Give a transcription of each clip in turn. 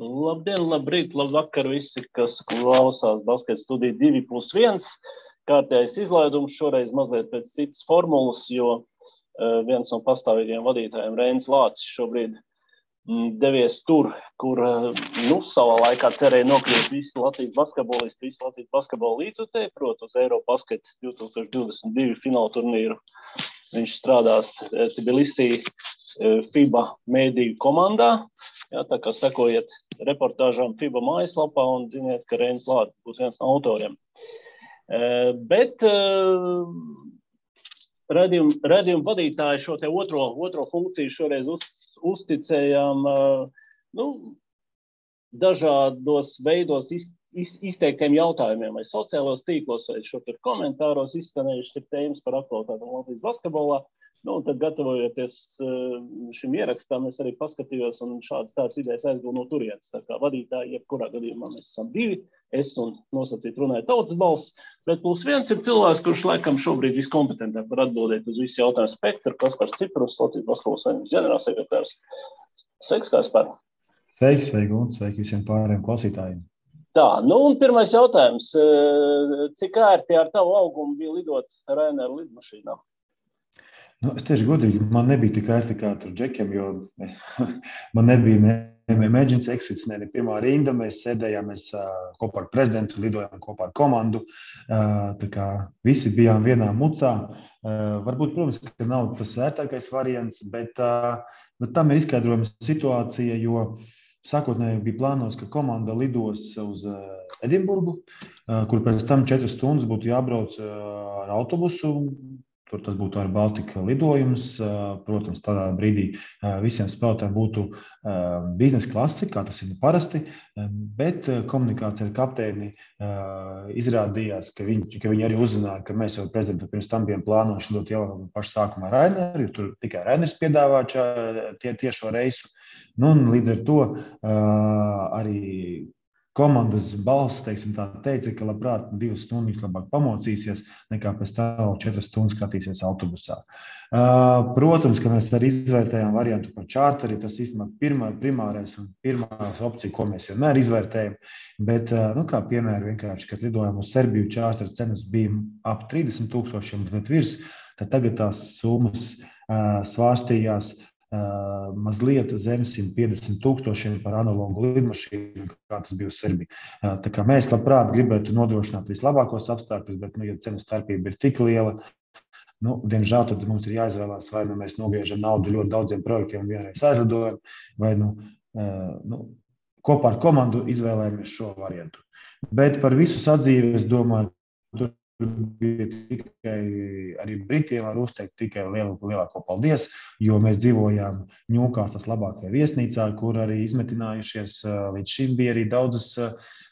Labdien, labrīt, labvakar visi, kas klausās Basket studiju 2+1. Kārtējais izlaidums šoreiz mazliet pēc citas formulas, jo viens no pastāvīgiem vadītājiem Reinis Lācis šobrīd devies tur, kur savā laikā cerēja nokļūt visi Latvijas basketbolisti, visi Latvijas basketbola līdzutēji, proti uz Eurobasket 2022 fināla turnīru. Viņš strādās Tbilisī FIBA mēdīju komandā. Jā, tā kā sekojiet reportāžām FIBA mājaslapā un ziniet, ka Reinis Lācis būs viens no autoriem. Bet redzījuma vadītāji šo te otro funkciju šoreiz uzticējām dažādos veidos izteiktiem jautājumiem, vai sociālos tīklos, vai šo tur komentāros izskanējušas ir tēmas par aktualitātēm Latvijas basketbolā. Un tad gatavojoties šim ierakstam, es arī paskatījos un šādas idejas aizgūnu no turienes. Tā kā vadītāji, jebkurā gadījumā mēs esam divi, es un nosacīt runāju Tautas balss, bet +1 ir cilvēks, kurš laikam šobrīd viskompetentāk var atbildēt uz visu jautājumu spektru, Kaspars Ciprus, Latvijas basketbola savienības ģenerālsekretārs. Sveiks, Kaspar! Sveiki, un sveiki visiem pārējiem klausītājiem. Tā, un pirmais jautājums. Cik ērti ar tavu augumu bija lidot Ryanair lidmašīnā? Es tieši godīgi, man nebija tik ērti kā tur džekiem, jo man nebija ne emergency exits, ne pirmā rinda. Mēs sēdējām kopā ar prezidentu, lidojām kopā ar komandu. Tā kā visi bijām vienā mucā. Varbūt, protams, ka nav tas ērtākais variants, bet tam ir izskaidrojama situācija, jo sākotnēji bija plānos, ka komanda lidos uz Edinburgu, kur pēc tam 4 stundas būtu jābrauc ar autobusu. Tur tas būtu ar Baltika lidojums. Protams, tādā brīdī visiem spēlētājiem būtu biznesa klase, kā tas ir parasti, bet komunikācija ar kapteini izrādījās, ka viņi arī uzzināja, ka mēs jau prezidentu pirms tam bijām plānojuši lidot jau pašu sākumā Ryanair, jo tur tikai Ryanairs piedāvā tiešo reisu. Un līdz ar to arī komandas balss, teica, ka labprāt 2 stundas labāk pamocīsies, nekā pēc tam 4 stundas skatīsies autobusā. Protams, ka mēs arī izvērtējām variantu par čārteri, tas īstenībā primārais un pirmā opcija, ko mēs vienmēr izvērtējam, bet, kā piemēram, vienkārši, kad lidojām uz Serbiju, čārteri cenas bija ap 30,000 bet virs, tad tagad tās summas svārstījās mazliet zem 150,000 par analogu lidmašīnu, kā tas bija uz Serbiju. Tā kā mēs labprāt gribētu nodrošināt vislabākos apstākļus, bet, ja cenu starpība ir tik liela, diemžēl tad mums ir jāizvēlās, vai mēs nogriežam naudu ļoti daudziem projektiem un vienreiz aizlidojam, vai kopā ar komandu izvēlējamies šo variantu. Bet par visu sadzīvi, es domāju, tur bija tikai arī Britiem var uzteikt tikai lielāko paldies, jo mēs dzīvojām Ņūkāslas labākajā viesnīcā, kur arī izmetinājušies līdz šim bija arī daudzas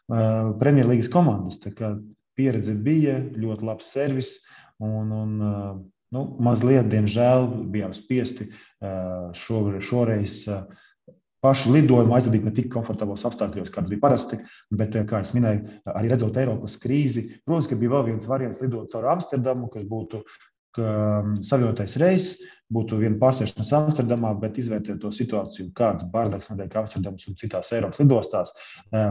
Premjerlīgas komandas. Tā kā pieredze bija, ļoti labs servis un mazliet, diemžēl, bijām spiesti šoreiz pašu lidojumu aizvadīt ne tik komfortablos apstākļos, kāds bija parasti, bet, kā es minēju, arī redzot Eiropas krīzi, protams, ka bija vēl viens variants lidot caur Amsterdamu, kas būtu savienotais reiss, būtu viena pārsēšanās Amsterdamā, bet izvērtēt to situāciju, kāds bardaks notiek Amsterdamas un citās Eiropas lidostās.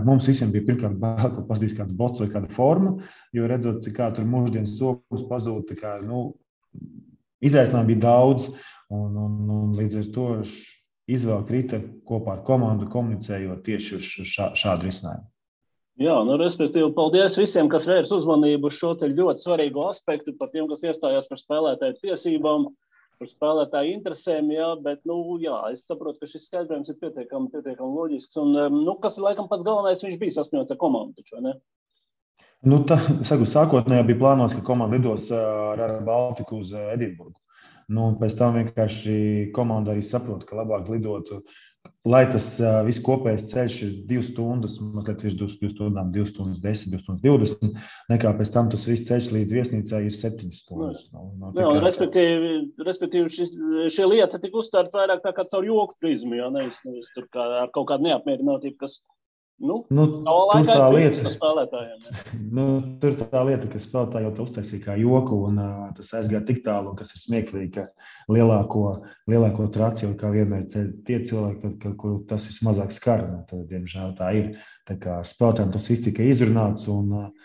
Mums visiem bija pirmkārt bail, ka paskatīs kāds bots vai kāda forma, jo redzot, kā tur mūždienas somas pazūd, izaicinājumi bija daudz, un līdz ar to izvēle krita kopā ar komandu, komunicējot tieši uz šādu risinājumu. Jā, respektīvi, paldies visiem, kas vērs uzmanību uz šo te ļoti svarīgo aspektu, par tiem, kas iestājās par spēlētāju tiesībām, par spēlētāju interesēm, jā, bet, es saprotu, ka šis skaidrojums ir pietiekami loģisks, un, kas ir laikam pats galvenais, viņš bija sasņots ar komandu, taču, vai ne? Sākotnējā bija plānos, ka komanda lidos ar Baltiku uz Edinburgu. Pēc tam vienkārši komanda arī saprot, ka labāk lidot, lai tas viss kopējais ceļš ir 2 stundas, mazliet virs 2 stundām, 2 stundas 10, 2 stundas 20, nekā pēc tam tas viss ceļš līdz viesnīcai ir 7 stundas. Respektīvi, šie lieta tika uztvērta vairāk tā kā caur joku prizmu, jo nevis tur kā ar kaut kādu neapmierinātību, kas Tur tā lieta, ka spēlētāji jau to uztaisīja kā joku, un tas aizgāja tik tālu, kas ir smieklīgi, ka lielāko traciju, kā vienmēr tie cilvēki, kur tas vismazāk skar, tad, diemžēl, tā ir. Tā kā spēlētājiem tas viss tika izrunāts, un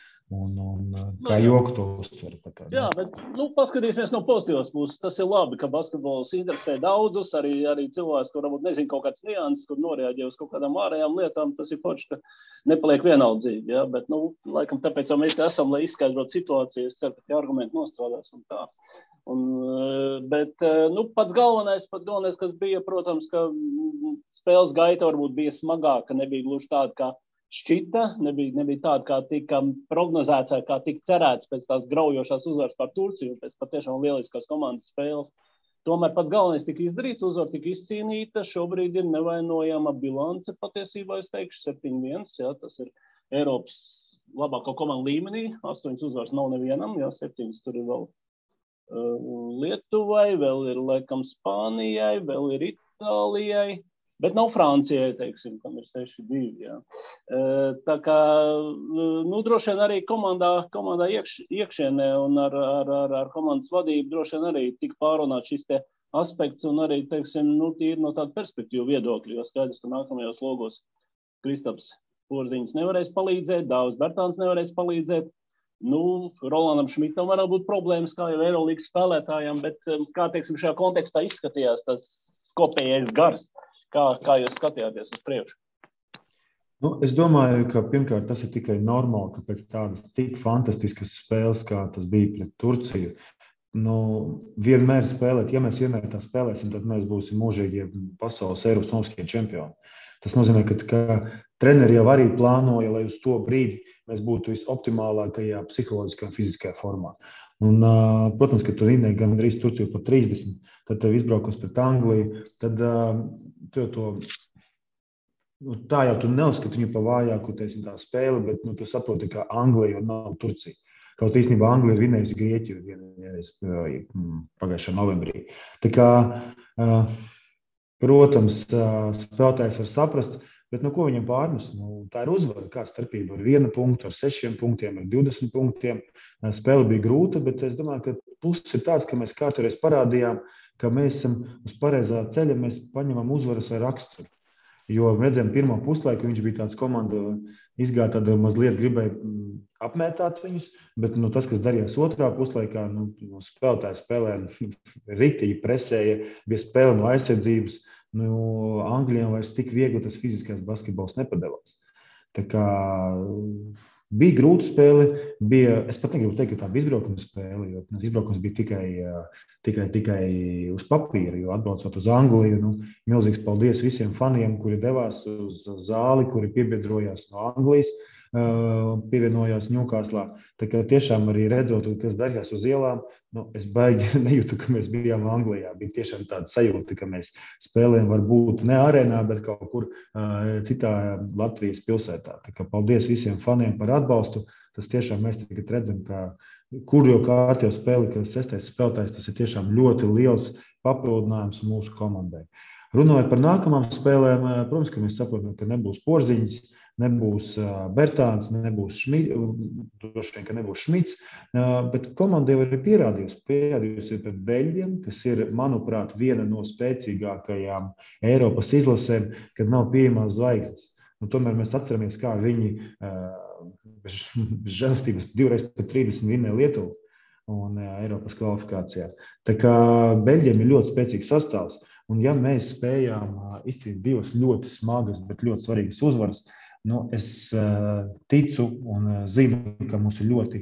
kā joku to uztver. Jā, bet paskatīsimies no pozitīvas puses. Tas ir labi, ka basketbols interesē daudzus, arī cilvēks, kur varbūt nezin kaut kāds nianses, kur norēģē uz kaut kādām ārējām lietām. Tas ir forši, ka nepaliek vienaldzīgi. Ja? Bet, laikam, tāpēc jau mēs esam, lai izskaidrotu situāciju. Es ceru, ka tie argumenti nostrādās un tā. Bet pats galvenais, kas bija, protams, ka spēles gaita varbūt bija smagāka, nebija gluži tāda, kā šķita, nebija tāda, kā tika prognozēts vai kā tika cerēts pēc tās graujošās uzvaras par Turciju, pēc patiešām lieliskās komandas spēles. Tomēr pats galvenais tika izdarīts, uzvara tika izcīnīta, šobrīd ir nevainojama bilance patiesībā, es teikšu, 7-1, jā, tas ir Eiropas labāko komandu līmenī, 8 uzvaras nav nevienam, jā, 7 tur ir vēl Lietuvai, vēl ir, laikam, Spānijai, vēl ir Itālijai, bet nav Francijai, teiksim, kam ir 6-2, jā. Tā kā, droši vien arī komandā iekšienē un ar komandas vadību droši vien arī tika pārunāt šis te aspekts un arī, teiksim, tīri no tāda perspektīva viedokļa, jo skaidrs, ka nākamajos logos Kristaps Porziņš nevarēs palīdzēt, Dāvis Bertāns nevarēs palīdzēt, Rolandam Šmitam varētu būt problēmas, kā jau Eirolīgas spēlētājiem, bet kā, teiksim, šajā kontekstā izskatījās tas kopējais gars? Kā jūs skatījāties uz priekšu? Es domāju, ka pirmkārt tas ir tikai normāli, ka pēc tādas tik fantastiskas spēles, kā tas bija pret Turciju, vienmēr spēlēt, ja mēs vienmēr tā spēlēsim, tad mēs būsim mūžīgie pasaules Eiropas olimpiskie čempioni. Tas nozīmē, ka treneri jau arī plānoja, lai uz to brīdi mēs būtu visoptimālākajā psiholoģiskā un fiziskajā formā. Un, protams, ka tu rindēji gan drīz Turciju par 30, tad tev izbraukos pret Angliju, tad tā jau tu neuzskati viņu pa vājāku, tā spēle, bet tu saproti, ka Anglija jau nav Turcija. Kaut īstenībā Anglija ir vinējusi Grieķiju vienreiz pagājušā novembrī. Tā kā, protams, spēlētājs var saprast, bet ko viņam pārnes? Tā ir uzvara, kā starpība ar 1 punktu, ar 6 punktiem, ar 20 punktiem. Spēle bija grūta, bet es domāju, ka pluss ir tāds, ka mēs kārtoreiz parādījām, ka mēs esam uz pareizā ceļa, mēs paņemam uzvaras ar raksturu. Jo redzējām pirmo puslaiku, viņš bija tāds komanda, izgāja tāda mazliet gribēja apmētāt viņus, bet tas, kas darījās otrā puslaikā, spēlētāji spēlēja riktīgi, presēja, bija spēle no aizsardzības, Anglijam vairs tik viegli tas fiziskais basketbols nepadevās. Tā kā bija grūta spēle, es pat negribu teikt, ka tā bija izbraukuma spēle, jo izbraukums bija tikai uz papīra, jo atbraucot uz Angliju, milzīgs paldies visiem faniem, kuri devās uz zāli, kuri piebiedrojās no Anglijas, pievienojās Ņūkāslā. Tā kā tiešām arī redzot, kas darījās uz ielām, es baigi nejūtu, ka mēs bijām Anglijā. Bija tiešām tāda sajūta, ka mēs spēlējam varbūt ne arēnā, bet kaut kur citā Latvijas pilsētā. Tā kā paldies visiem faniem par atbalstu. Tas tiešām mēs tagad redzam, ka kur jau kārtībā spēle, ka 6. spēlētājs, tas ir tiešām ļoti liels papildinājums mūsu komandai. Runājot par nākamām spēlēm, protams, ka mēs saprotam, ka nebūs Porziņš, nebūs Bertāns, nebūs Šmits, droši vien, ka nebūs Šmits, bet komanda jau ir pierādījusi pret Beļģiem, kas ir, manuprāt, viena no spēcīgākajām Eiropas izlasēm, kad nav pieejamās zvaigznes. Tomēr mēs atceramies, kā viņi bez žēlstības 2x30 vinnēja Lietuvu un Eiropas kvalifikācijā. Tā kā Beļģiem ir ļoti spēcīgs sastāvs, un ja mēs spējām izcīt 2 ļoti smagas, bet ļoti svarīgas uzvaras, es ticu un zinu, ka mums ir ļoti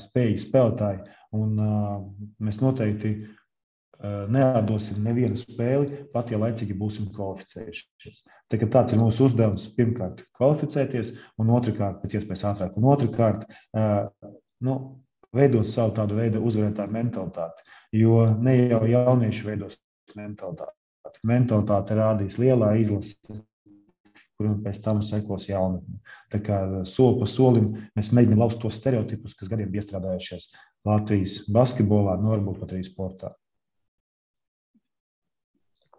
spējīgi spēlētāji, un mēs noteikti neatdosim nevienu spēli, pat ja laicīgi būsim kvalificējušies. Tāds ir mūsu uzdevums pirmkārt kvalificēties, un otrkārt, pēc iespējas ātrāk, un otrkārt, veidot savu tādu veidu uzvarētāju mentalitāti, jo ne jau jaunieši veidos mentalitāti. Mentalitāte rādīs lielā izlase, kur pēc tam sekos jaunatne. Tā kā soli pa solim mēs mēģinām lauzt tos stereotipus, kas gadiem bija iestrādājušies Latvijas basketbolā, varbūt pat arī sportā.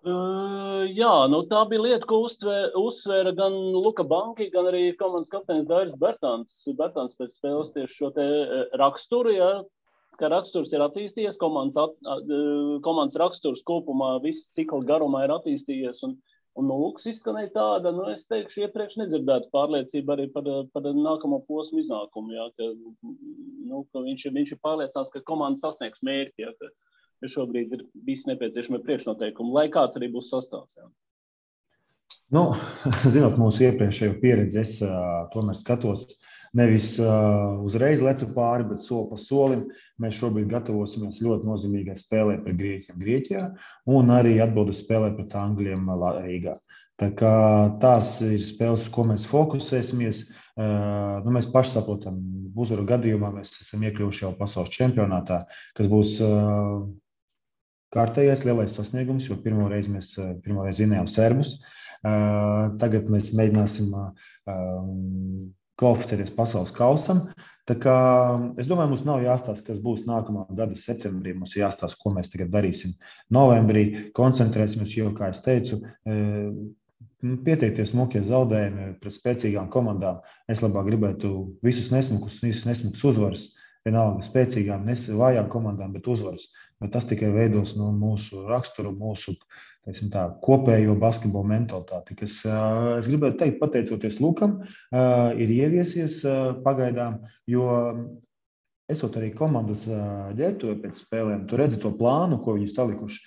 Jā, tā bija lieta, ko uzsvēra gan Luka Banki, gan arī komandas kapteinis Dairis Bertāns. Bertāns pēc spēles tieši šo te raksturu, ja, ka raksturs ir attīstījies, komandas raksturs kopumā viss cikla garumā ir attīstījies, un Lukas izskanēja tāda, es teikšu, iepriekš nedzirdētu pārliecību arī par nākamo posmu iznākumu, ja, ka viņš ir pārliecināts, ka komanda sasniegs mērķi, ja, ka šobrīd ir visi nepieciešami priekšnoteikumi, lai kāds arī būs sastāvs. Jā. Zinot mūsu iepriekšējo pieredzi, es tomēr skatos nevis uzreiz letu pāri, bet soli pa solim. Mēs šobrīd gatavosimies ļoti nozīmīgai spēlē pret Grieķiem Grieķijā un arī atbildes spēlē pret Angļiem Rīgā. Tā kā tās ir spēles, uz ko mēs fokusēsimies. Mēs paši saprotam, uzvaru gadījumā mēs esam iekļuvuši jau pasaules čempionātā, kas būs kārtējais lielais sasniegums, jo pirmo reizi vinējām serbus. Tagad mēs mēģināsim kvalificēties pasaules kausam. Tā kā es domāju, mums nav jāstāsta, kas būs nākamā gada septembrī. Mums ir jāstāsta, ko mēs tagad darīsim novembrī. Koncentrēsimies, jo, kā es teicu, pieteikties smukie zaudējumi pret spēcīgām komandām. Es labāk gribētu visus nesmukus uzvaras. Vienalga spēcīgām, vājām komandām, bet uzvaras. Bet tas tikai veidos mūsu raksturu, mūsu kopējo basketbolu mentalitāti, kas, es gribētu teikt, pateicoties Lukam, ir ieviesies pagaidām, jo esot arī komandas ģērbtuvē pēc spēlēm, tu redzi to plānu, ko viņi salikuši.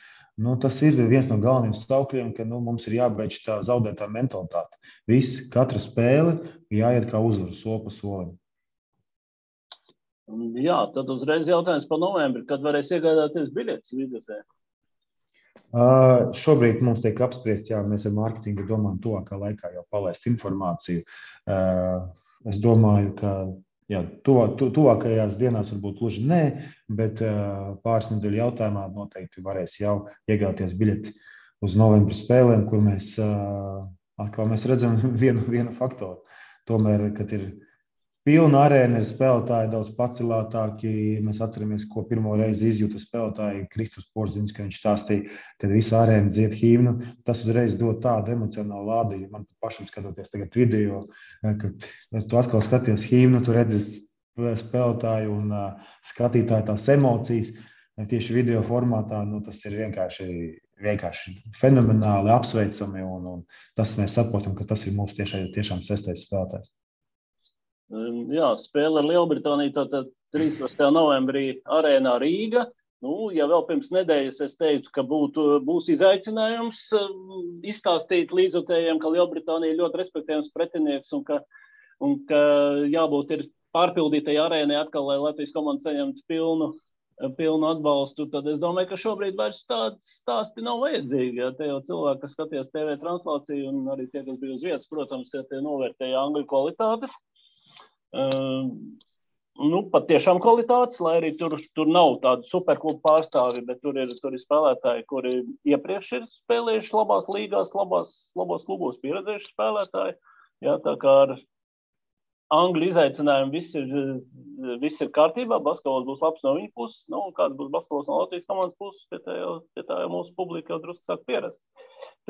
Tas ir viens no galvenajiem saukļiem, ka mums ir jābeidz tā zaudētā mentalitāte. Katra spēle jāiet kā uzvaru, soli pa solim. Jā, tad uzreiz jautājums par novembri, kad varēs iegādāties biļetes vidutē? Šobrīd mums tiek apspriests, mēs ar mārketingu domājam tuvākā laikā jau palaist informāciju. Es domāju, ka tuvākajās dienās varbūt gluži nē, bet pāris nedēļu jautājumā noteikti varēs jau iegādāties biļeti uz novembra spēlēm, kur mēs atkal redzam vienu faktoru. Tomēr, kad ir pilna arēna, ir spēlētāji daudz pacelātāki. Mēs atceramies, ko pirmo reizi izjūta spēlētāji Kristofers Porziņš, ka viņš stāstīja, kad visa arēna dzied himnu. Tas uzreiz dod tādu emocionālu lādījumu. Man pašam skatoties tagad video, kad tu atkal skaties himnu, tu redzi spēlētāju un skatītāju tās emocijas. Tieši video formātā tas ir vienkārši fenomenāli apsveicami. Un tas mēs saprotam, ka tas ir mūsu tiešām sestais spēlētājs. Jā, spēle ar Lielbritāniju, tātad 13. novembrī arēnā Rīga. Ja vēl pirms nedēļas es teicu, ka būs izaicinājums izstāstīt līdzjutējiem, ka Lielbritānija ir ļoti respektējams pretinieks un ka jābūt ir pārpildītai arēnai atkal, lai Latvijas komanda saņemtu pilnu atbalstu, tad es domāju, ka šobrīd vairs tāds stāsti nav vajadzīgi. Ja, te jau cilvēki, kas skatījās TV translāciju un arī tie, kas bija uz vietas, protams, ja tie novērtēja angļu kvalitātes. Pat tiešām kvalitātes, lai arī tur nav tādu superklubu pārstāvi, bet tur ir spēlētāji, kuri iepriekš ir spēlējuši labās līgās, labos klubos pieredzējuši spēlētāji. Jā, tā kā ar angļu izaicinājumu viss ir kārtībā, basketbols būs labs no viņa puses, kāds būs basketbols no Latvijas komandas puses, pie tā jau mūsu publika jau drusku sāk pierast.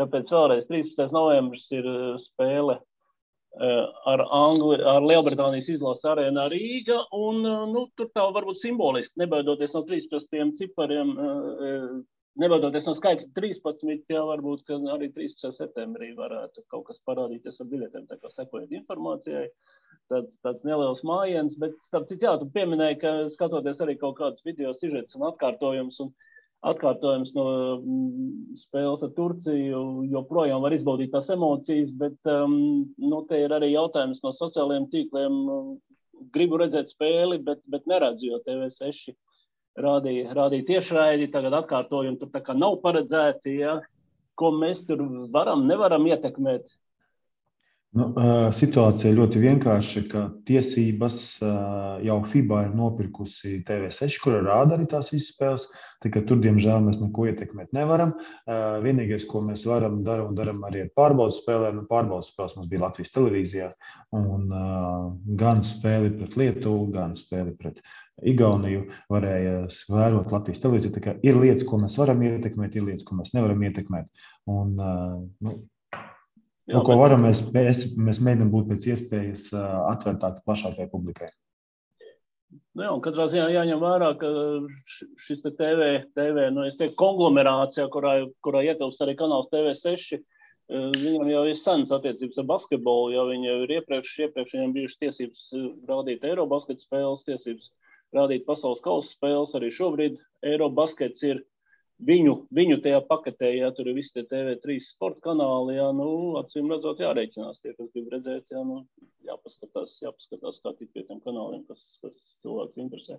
Tāpēc vēlreiz 13. novembris ir spēle ar Lielbritānijas izlases arēnā Rīga, un tur tā varbūt simboliski, nebaidoties no 13 cipariem, nebaidoties no skaitļa 13, jā, varbūt, ka arī 13. septembrī varētu kaut kas parādīties ar biļetēm, tā kā sekojot informācijai, tāds neliels mājiens, bet starp citu, jā, tu pieminēji, ka skatoties arī kaut kādas video sižetus un atkārtojums no spēles ar Turciju, joprojām var izbaudīt tās emocijas, bet te ir arī jautājums no sociālajiem tīkliem. Gribu redzēt spēli, bet neredzu, jo TV6 rādīja tiešraidi, tagad atkārtojumi tur tā kā nav paredzēti, ja? Ko mēs tur nevaram ietekmēt. Situācija ļoti vienkārša, ka tiesības jau FIBA ir nopirkusi TV6, kura rāda arī tās visas spēles. Tikai tur, diemžēl, mēs neko ietekmēt nevaram. Vienīgais, ko mēs varam darām arī ar pārbaudas spēlēm. Pārbaudas spēles mums bija Latvijas televīzijā. Un gan spēli pret Lietuvu, gan spēli pret Igauniju varēja vērot Latvijas televīziju. Tā kā ir lietas, ko mēs varam ietekmēt, ir lietas, ko mēs nevaram ietekmēt. Un, ko varam, mēs mēģinām būt pēc iespējas atvērtāki plašākai publikai. Jā, un katrā ziņā jāņem vērā, ka šis TV konglomerācijā, kurā ietilpst arī kanāls TV6, viņam jau ir senas attiecības ar basketbolu, jo viņi jau ir iepriekš viņam bijušas tiesības rādīt Eirobasket spēles, tiesības rādīt pasaules kausa spēles, arī šobrīd Eirobaskets ir viņu tajā paketē, ja tur ir visi tie TV3 sporta kanāli, acīm redzot jāreikinās tie, kas grib redzēt, jāpaskatās, kā tik pie tiem kanāliem, kas cilvēks interesē.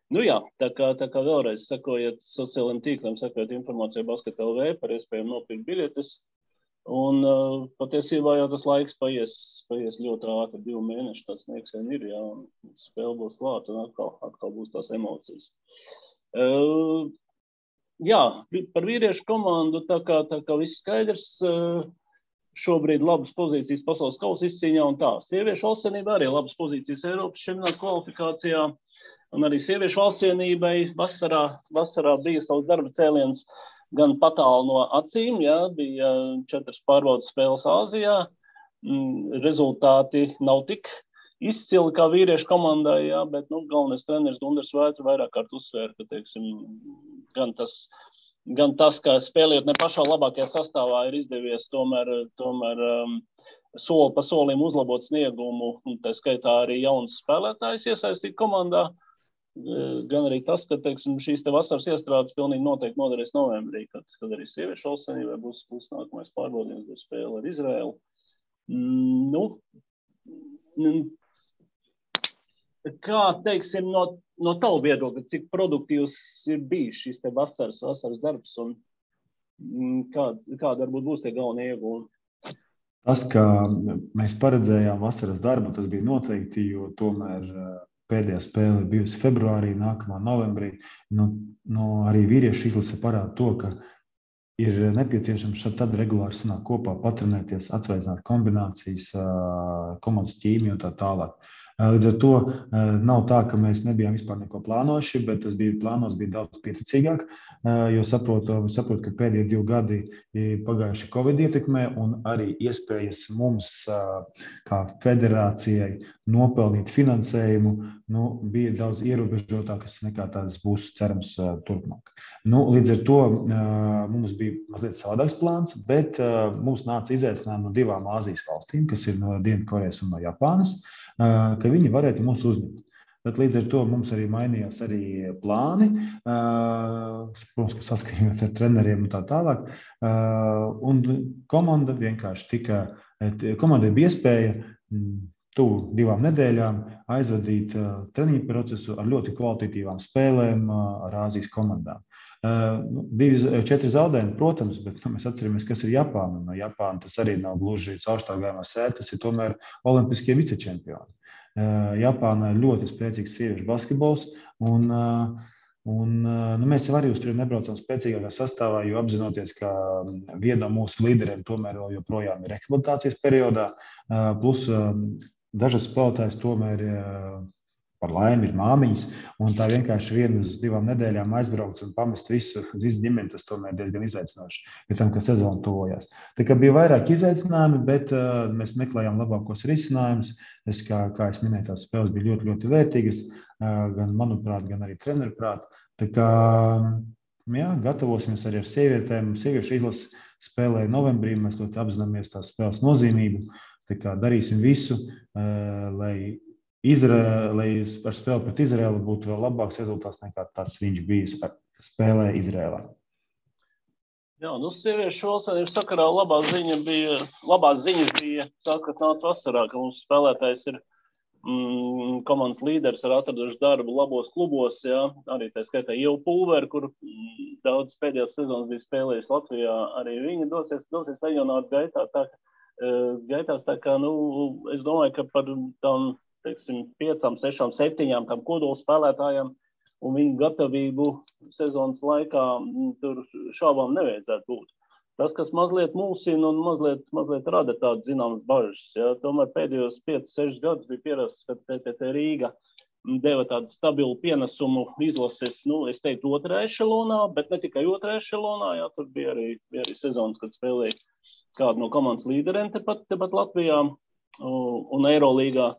Tā kā vēlreiz sekojiet sociālajiem tīkliem, sekojiet informāciju Basket LV par iespējām nopirkt biļetes, un patiesībā jau tas laiks paies ļoti ātri, 2 mēneši, tas sniegs vien ir, un spēle būs klāta, un atkal būs tās emocijas. Par vīriešu komandu, tā kā viss skaidrs, šobrīd labas pozīcijas pasaules kausa izcīņā un tā. Sieviešu valstsienībā arī labas pozīcijas Eiropas čempionāta kvalifikācijā, un arī sieviešu valstsienībai vasarā bija savs darba cēliens gan patālu no acīm, bija 4 pārbaudas spēles Āzijā, rezultāti nav tik izcili kā vīriešu komandai, bet galvenais treneris Gundars Vētra vairāk kārt uzsvēra, ka, teiksim, gan tas, ka spēlējot ne pašā labākajā sastāvā ir izdevies tomēr soli pa solim uzlabot sniegumu, un tā skaitā arī jauns spēlētājs iesaistīt komandā, gan arī tas, ka, teiksim, šīs te vasaras iestrādes pilnīgi noteikti noderēs novembrī, kad arī sieviešu valstsienībai būs nākamais pārbaudījums, būs spēle ar Izraēlu. Kā, teiksim, no tavu viedokļa, cik produktīvs ir bijis šis te vasaras darbs un kāda varbūt būs tie galvenie iegūmi? Tas, ka mēs paredzējām vasaras darbu, tas bija noteikti, jo tomēr pēdējā spēle bijusi februārī, nākamā novembrī. Arī vīriešu izlase parāda to, ka ir nepieciešams tad regulāri sanākt kopā, patrenēties, atsveicināt kombinācijas, komandas ķīmiju un tā tālāk. Līdz ar to nav tā, ka mēs nebijām vispār neko plānojuši, bet tas bija plānos daudz pieticīgāk, jo saprotu, ka pēdējie 2 gadi pagājuši Covid ietekmē un arī iespējas mums kā federācijai nopelnīt finansējumu bija daudz ierobežotākas nekā tās būs cerams turpmāk. Līdz ar to mums bija mazliet savādāks plāns, bet mums nāca izaicinājumi no 2 Āzijas valstīm, kas ir no Dienvidkorejas un no Japānas, ka viņi varētu mūs uzņemt. Bet līdz ar to mums arī mainījās arī plāni, protams, ka saskaņot ar treneriem un tā tālāk. Un komanda vienkārši komandai bija iespēja tuvu 2 nedēļām aizvadīt treniņu procesu ar ļoti kvalitatīvām spēlēm ar Āzijas komandām. 4 zaudējumi, protams, bet mēs atceramies, kas ir Japāna. No Japāna tas arī nav gluži caurštāvgājumā sēta, tas ir tomēr olimpiskie vicečempioni. Japānā ir ļoti spēcīgs sieviešu basketbols, un mēs jau arī uz turieni nebraucam spēcīgākā sastāvā, jo apzinoties, ka viena no mūsu līderiem tomēr joprojām ir rehabilitācijas periodā, plus dažas spēlētājas tomēr par laimi ir māmiņas, un tā vienkārši 1 uz 2 nedēļām aizbraukt un pamest visu ģimeni, tas tomēr diezgan izaicinoši, pie tam, ka sezona tuvojās. Tā kā bija vairāk izaicinājumi, bet mēs meklējām labākos risinājumus. Kā es minēju, tās spēles bija ļoti, ļoti vērtīgas, gan manuprāt, gan arī treneru prāt. Tā kā, gatavosimies arī ar sievietēm. Sieviešu izlase spēlē novembrī, mēs ļoti apzināmies tās spēles nozīmību. Tā kā darīsim visu, lai ar spēli pret Izraēlu būtu vēl labāks rezultāts nekā tas viņš bija spēlē Izraēlā. Sieviešu valstsienības sakarā labās ziņas bija tās, kas nāca vasarā, ka mums spēlētājs ir komandas līderis ar atraduši darbu labos klubos, arī tā skaitā Ieva Pulveri, kur daudz pēdējās sezonas bija spēlējis Latvijā, arī viņa dosies leģionāru gaitā, tā gaitās. Tā kā, es domāju, ka par tam, teiksim, 5, 6, 7 tam kodola spēlētājiem un viņu gatavību sezonas laikā tur šābām nevajadzētu būt. Tas, kas mazliet mulsina un mazliet rada tādas zināmas bažas. Ja? Tomēr pēdējos 5, 6 gadus bija pierasts, ka TTT Rīga deva tādu stabilu pienesumu izlases, es teiktu, 2. ešelonā, bet ne tikai 2. ešelonā, jā, tur bija arī sezonas, kad spēlēja kādu no komandas līderiem tepat Latvijā un Eirolīgā.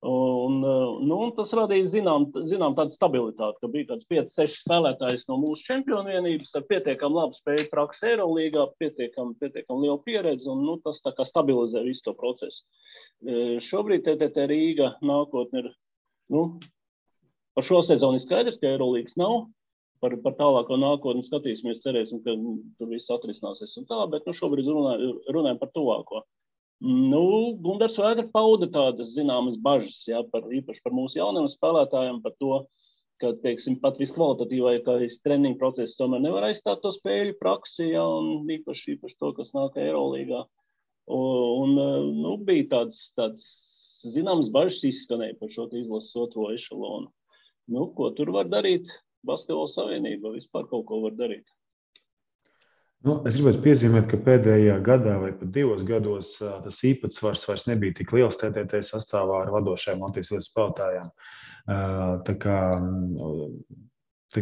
Un tas radīja zinām tādu stabilitāti, ka bija kāds 5, 6 spēlētājs no mūsu čempionu vienības ar pietiekam labu spēju praksi Eirolīgā, pietiekam lielu pieredzi, un tas tā kā stabilizē visu to procesu. Šobrīd TTT Rīga nākotne ir, par šo sezonu ir skaidrs, ka Eirolīgas nav, par tālāko nākotni skatīsimies, cerēsim, ka tur viss atrisināsies un tā, bet šobrīd runājam par tuvāko. Gundars Vētra pauda tādas zināmas bažas, jā, īpaši par mūsu jauniem spēlētājiem, par to, ka, teiksim, pat viskvalitatīvākais treniņu process tomēr nevar aizstāt to spēļu praksi, jā, un īpaši to, kas nāk Eirolīgā. Bija tāds zināmas bažas izskanēja par šo izlases 2. ešelonu. Ko tur var darīt? Basketbola savienība vispār kaut ko var darīt. Es gribētu piezīmēt, ka pēdējā gadā vai pat 2 gados tas īpatsvars vairs nebija tik liels TTT sastāvā ar vadošajām Latvijas līdz spēlētājiem. Tā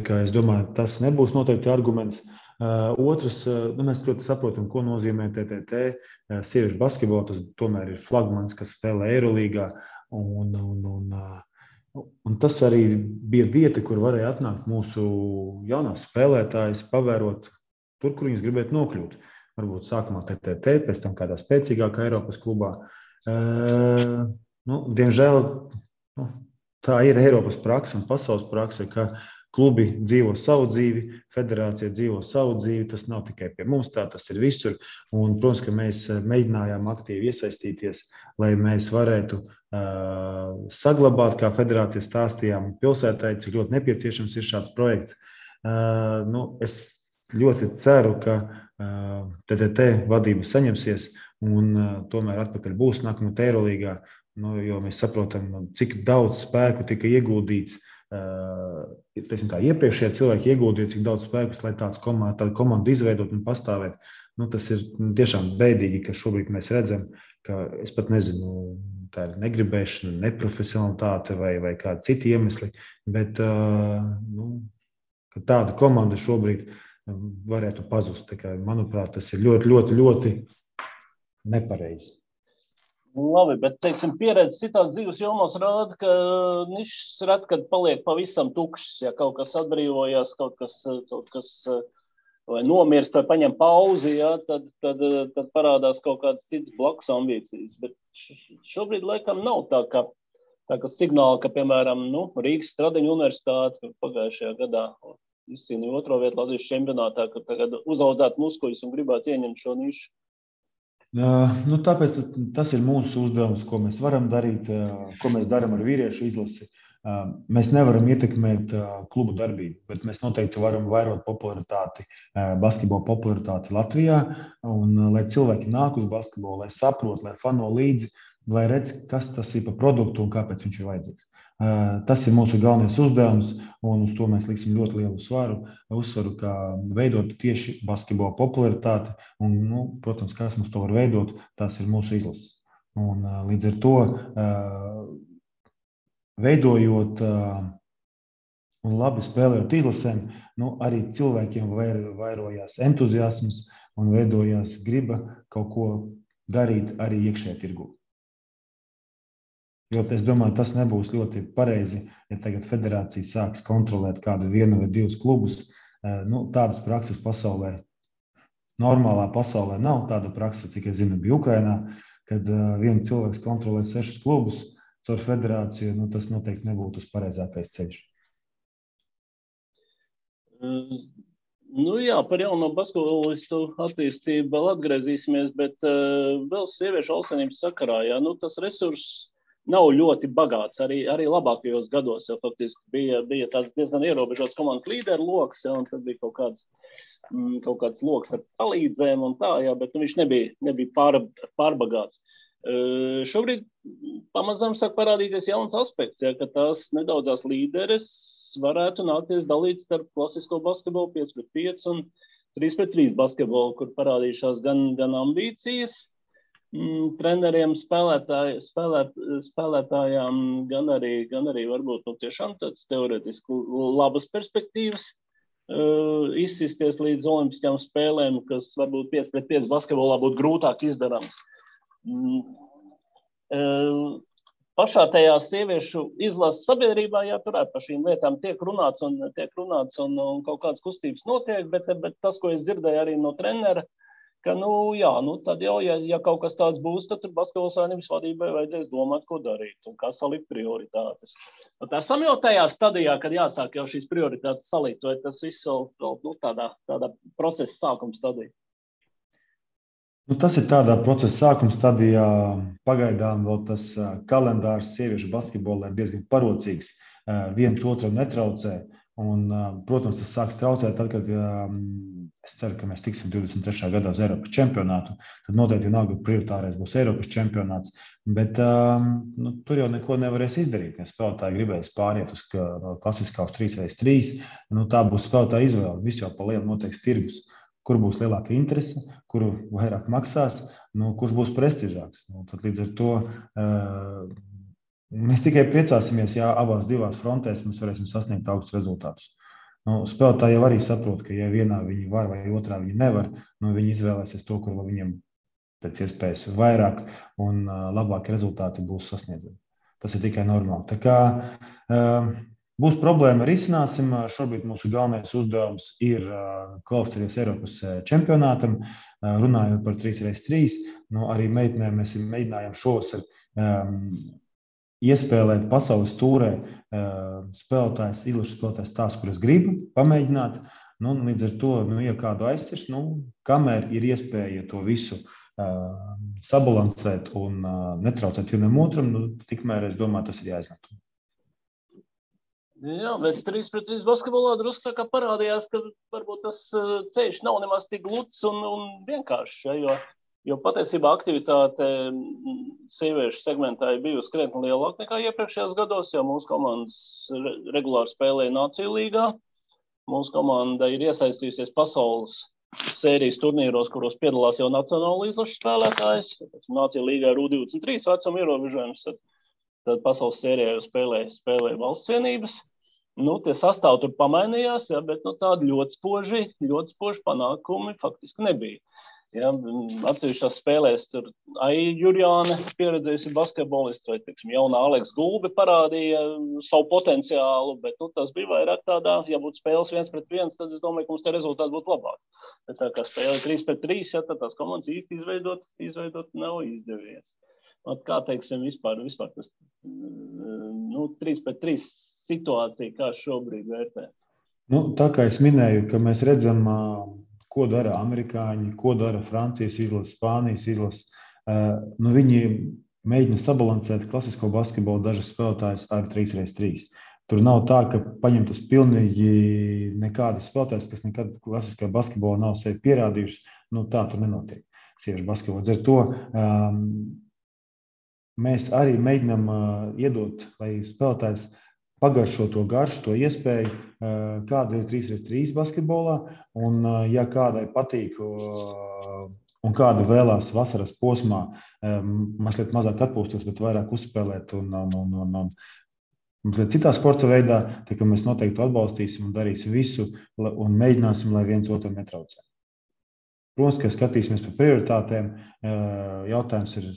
kā es domāju, tas nebūs noteikti arguments. Otrs, mēs ļoti saprotam, ko nozīmē TTT. Sieviešu basketbola, tas tomēr ir flagmans, kas spēlē Eirolīgā. Un tas arī bija vieta, kur varēja atnākt mūsu jaunās spēlētājas, pavērot tur, kur viņas gribētu nokļūt. Varbūt sākumā TTT, pēc tam kādā spēcīgākā Eiropas klubā. Diemžēl tā ir Eiropas praksa un pasaules praksa, ka klubi dzīvo savu dzīvi, federācija dzīvo savu dzīvi. Tas nav tikai pie mums tā, tas ir visur. Un, protams, ka mēs mēģinājām aktīvi iesaistīties, lai mēs varētu saglabāt, kā federācija stāstījām pilsētai, cik ļoti nepieciešams ir šāds projekts. Es ļoti ceru, ka TTT vadība saņemsies un tomēr atpakaļ būs nākamā Eirolīgā, jo mēs saprotam, cik daudz spēku tika ieguldīts. Iepriekšējie cilvēki ieguldīja, cik daudz spēkus, lai tādu komandu izveidot un pastāvēt. Tas ir tiešām bēdīgi, ka šobrīd mēs redzam, ka es pat nezinu, tā ir negribēšana, neprofesionalitāte vai kādi citi iemesli, bet ka tāda komanda šobrīd varētu pazust. Manuprāt, tas ir ļoti, ļoti, ļoti nepareizi. Labi, bet, teiksim, pieredze citās dzīves jomās rāda, ka nišas ret, kad paliek pavisam tukšas. Ja kaut kas atbrīvojās, kaut kas vai nomirst, vai paņem pauzi, ja, tad parādās kaut kādas citas blakus ambīcijas. Bet šobrīd laikam nav tā, ka signāli, ka, piemēram, Rīgas Stradiņu universitāte pagājušajā gadā izcīnīja 2. vietu Latvijas čempionātā, ka tagad uzaudzētu muskuļus un gribētu ieņemt šo nišu. Tāpēc tas ir mūsu uzdevums, ko mēs varam darīt, ko mēs darām ar vīriešu izlasi. Mēs nevaram ietekmēt klubu darbību, bet mēs noteikti varam vairot popularitāti, basketbola popularitāti Latvijā, un lai cilvēki nāk uz basketbolu, lai saprot, lai fano līdzi, lai redz, kas tas ir par produktu un kāpēc viņš ir vajadzīgs. Tas ir mūsu galvenais uzdevums, un uz to mēs liksim ļoti lielu uzsvaru, kā veidot tieši basketbola popularitāti, un, protams, kas mums to var veidot, tās ir mūsu izlases. Un līdz ar to veidojot un labi spēlējot izlasēm, arī cilvēkiem vairojās entuziasms un veidojās griba kaut ko darīt arī iekšējā tirgū. Jo es domāju, tas nebūs ļoti pareizi, ja tagad federācija sāks kontrolēt kādu 1 vai 2 klubus. Tādas prakses pasaulē, normālā pasaulē nav tāda praksa, cik es zinu, bija Ukrainā, kad viens cilvēks kontrolē 6 klubus caur federāciju, tas noteikti nebūtu tas pareizākais ceļš. Jā, par jauno basketbolistu attīstību vēl atgriezīsimies, bet vēl sieviešu alsenības sakarā, jā, tas resurss nav ļoti bagāts, arī labākajos gados, jo faktiski bija tāds diezgan ierobežots komandas līderu loks, ja, un tad bija kaut kāds kaut kāds loks ar palīdzēm un tā, jā, bet viņš nebija pārbagāts. Šobrīd pamazām sāk parādīties jauns aspekts, ja, ka tās nedaudzās līderes varētu nākties dalīt starp klasisko basketbolu 5-5 un 3-3 basketbolu, kur parādījušās gan ambīcijas treneriem, spēlētājām, gan arī varbūt tiešām tāds teoretiski labas perspektīvas izsisties līdz olimpiskajām spēlēm, kas varbūt 5-5 basketbolā būtu grūtāk izdarams. Pašā tajā sieviešu izlases sabiedrībā, jā, turēt par šīm lietām tiek runāts un kaut kādas kustības notiek, bet tas, ko es dzirdēju arī no trenera, ka, tad jau, ja kaut kas tāds būs, tad tur basketbola savienības vadībai vajadzēs domāt, ko darīt un kā salikt prioritātes. Esam jau tajā stadijā, kad jāsāk jau šīs prioritātes salikt, vai tas viss vēl tādā procesa sākuma stadijā? Tas ir tādā procesa sākuma stadijā. Pagaidām vēl tas kalendārs sieviešu basketbolā ir diezgan parocīgs. Viens otram netraucē. Un, protams, tas sāks traucēt tad, kad es ceru, ka mēs tiksim 23. gadā uz Eiropas čempionātu. Tad noteikti vienalga prioritārais būs Eiropas čempionāts. Bet tur jau neko nevarēs izdarīt. Ja spēlētāji gribēs pāriet uz klasiskā uz 3x3, tā būs spēlētāja izvēle. Viss jau pa lielu noteiks tirgus. Kur būs lielāka interese, kuru vairāk maksās, kurš būs prestižāks. Tad līdz ar to mēs tikai priecāsimies, ja abās divās frontēs mēs varēsim sasniegt augstus rezultātus. Spēlētāji jau arī saprot, ka ja vienā viņi var vai otrā viņi nevar, viņi izvēlēsies to, kur viņiem pēc iespējas vairāk un labāki rezultāti būs sasniedzami. Tas ir tikai normāli. Tā kā būs problēma, risināsim. Šobrīd mūsu galvenais uzdevums ir kvalificēties Eiropas čempionātam, runājot par 3x3. Arī meitenēm mēs mēģinājām šovasar iespēlēt pasaules tūrē spēlētājs, izlašu spēlētājs tās, kuras gribu pamēģināt. Līdz ar to, ja kādu aizķers, kamēr ir iespēja to visu sabalansēt un netraucēt vienam otram, tikmēr, es domāju, tas ir jāizmanto. Jā, bet 3-3 basketbolā drusku tā kā parādījās, ka varbūt tas ceļš nav nemaz tik gluds un vienkāršs, ja, jo patiesībā aktivitāte sieviešu segmentā ir bijusi krietni lielāka nekā iepriekšējos gados, jo mūsu komandas regulāri spēlēja Nāciju līgā. Mūsu komanda ir iesaistījusies pasaules sērijas turnīros, kuros piedalās jau nacionāla izlašu spēlētājs. Nāciju līgā ir U23 vecuma ierobežojums, tad pasaules sērijā jau spēlēja valsts vienības. Tie sastāvi tur pamainījās, ja, bet tādi ļoti spoži panākumi faktiski nebija. Ja, atsevišķās spēlēs tur Aija Jurjāne pieredzējusi basketbolistu, vai, jaunā Aleks Gulbe parādīja savu potenciālu, bet tas bija vairāk tādā, ja būtu spēles 1-1, tad es domāju, ka mums te rezultāti būtu labāk. Bet tā kā spēle 3-3, ja, tad tās komandas īsti izveidot nav izdevies. Kā teiksim vispār tas 3-3 situācija, kā šobrīd vērtē? Tā kā es minēju, ka mēs redzam, ko dara amerikāņi, ko dara Francijas izlases, Spānijas izlases. Viņi mēģina sabalansēt klasisko basketbolu dažas spēlētājas ar 3x3. Tur nav tā, ka paņemtas pilnīgi nekādas spēlētājas, kas nekad klasiskā basketbolā nav sevi pierādījušas. Tā tur nenotiek sieviešu basketbolā. Ar to mēs arī mēģinām iedot, lai spēlētājs pagaršo to garšu, to iespēju, kāda ir 3x3 basketbolā. Un, ja kādai patīk un kāda vēlās vasaras posmā, mazliet mazāk atpūsties, bet vairāk uzspēlēt un mazliet citā sporta veidā, tā kā mēs noteikti atbalstīsim un darīsim visu un mēģināsim, lai viens otram netraucē. Protams, ka skatīsimies par prioritātēm. Jautājums ir,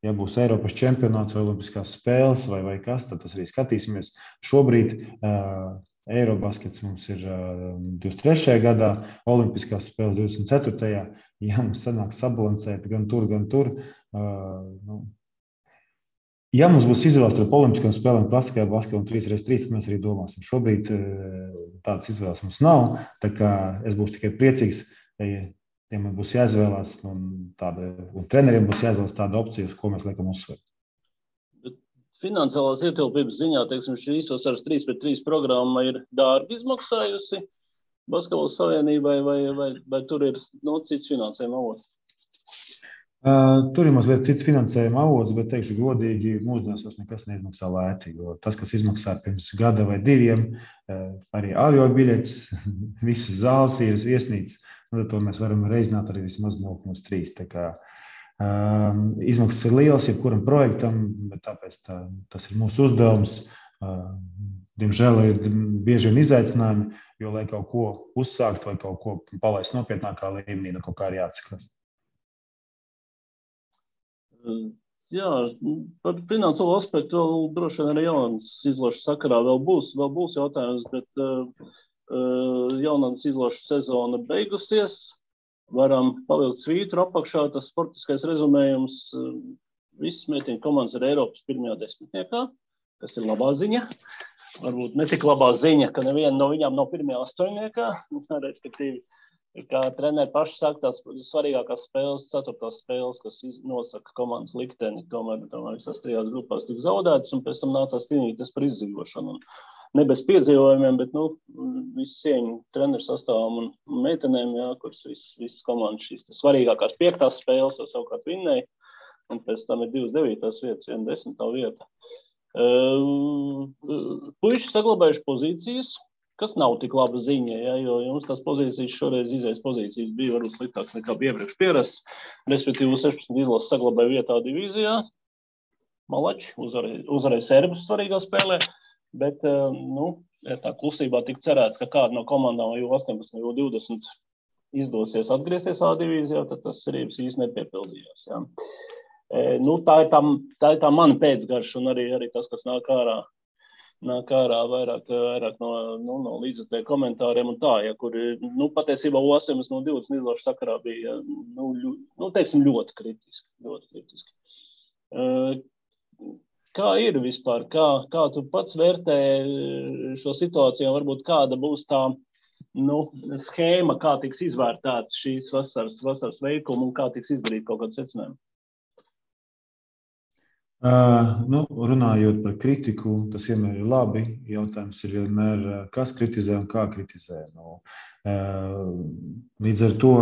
ja būs Eiropas čempionāts vai olimpiskās spēles vai kas, tad tas arī skatīsimies. Šobrīd Eirobaskets mums ir 23. gadā, olimpiskās spēles 24. Ja mums sanāks sabalansēt gan tur. Ja mums būs izvēles starp olimpiskām spēlēm, klasiskajā basketbolā un 3x3, tad mēs arī domāsim. Šobrīd tādas izvēles mums nav, tā kā es būšu tikai priecīgs, ja man būs jāizvēlās, un treneriem būs jāizvēlās tāda opcija, uz ko mēs liekam uzsveru. Finansiālās ietilpības ziņā, šī īsvasaras 3x3 programma ir dārgi izmaksājusi. Basketbola savienībai vai tur ir cits finansējuma avots? Tur ir mazliet cits finansējuma avots, bet, teikšu godīgi, mūsdienās vairs nekas neizmaksā lēti. Jo tas, kas izmaksā pirms gada vai diviem, arī avio biļetes, visas zāles ir viesnīcas, to mēs varam reizināt arī vismaz 0,3. Tā kā izmaksas ir lielas jebkuram projektam, bet tāpēc tas ir mūsu uzdevums. Diemžēl ir bieži vien izaicinājumi, jo, lai kaut ko uzsākt vai kaut ko palaist nopietnākā līmenī, kaut kā arī jāatskatās. Jā, par finansiālo aspektu vēl droši vien arī jaunas izložu sakarā vēl būs jautājums, bet jaunas izložu sezona beigusies. Varam pavilkt svītru apakšā, tas sportiskais rezumējums. Visas meitiņu komandas ir Eiropas pirmajā desmitniekā, kas ir labā ziņa. Varbūt ne tik labā ziņa, ka neviena no viņām nav pirmajā astoņniekā, respektīvi. Kā treneri paši saka, tās svarīgākās spēles, 4. spēles, kas nosaka komandas likteni, tomēr visās 3 grupās tika zaudētas, un pēc tam nācās cīnīties par izdzīvošanu. Ne bez piedzīvojumiem, bet visu cieņu treneru sastāvam un meitenēm, jā, kuras visas komandas šīs svarīgākās 5. spēles jau savukārt vinnēja, un pēc tam ir 2 9. vietas, 1 10. vieta. Puiši saglabājuši pozīcijas, kas nav tik laba ziņa, ja, jo jums tās pozīcijas šoreiz izējas pozīcijas bija varbūt sliktāks nekā iepriekš pierasts. Respektīvi 16 izlases saglabāja vietā divīzijā. Malači uzvarēja serbus svarīgā spēlē, bet tā klusībā tika cerēts, ka kāda no komandām U18 vai U20 izdosies atgriezties A divīzijā, tad tas cerības īsti nepiepildījās. Ja. Tā ir tā mana pēcgarša un arī tas, kas nāk ārā vairāk no līdzjutēju komentāriem un tā, ja, kur patiesībā U18 no 20 izložu sakarā bija, teiksim, ļoti kritiski. Kā ir vispār? Kā tu pats vērtē šo situāciju? Varbūt kāda būs tā schēma, kā tiks izvērtēts šīs vasaras veikuma un kā tiks izdarīt kaut kāds secinājums? Runājot par kritiku, tas vienmēr ir labi. Jautājums ir vienmēr, kas kritizē un kā kritizē. Līdz ar to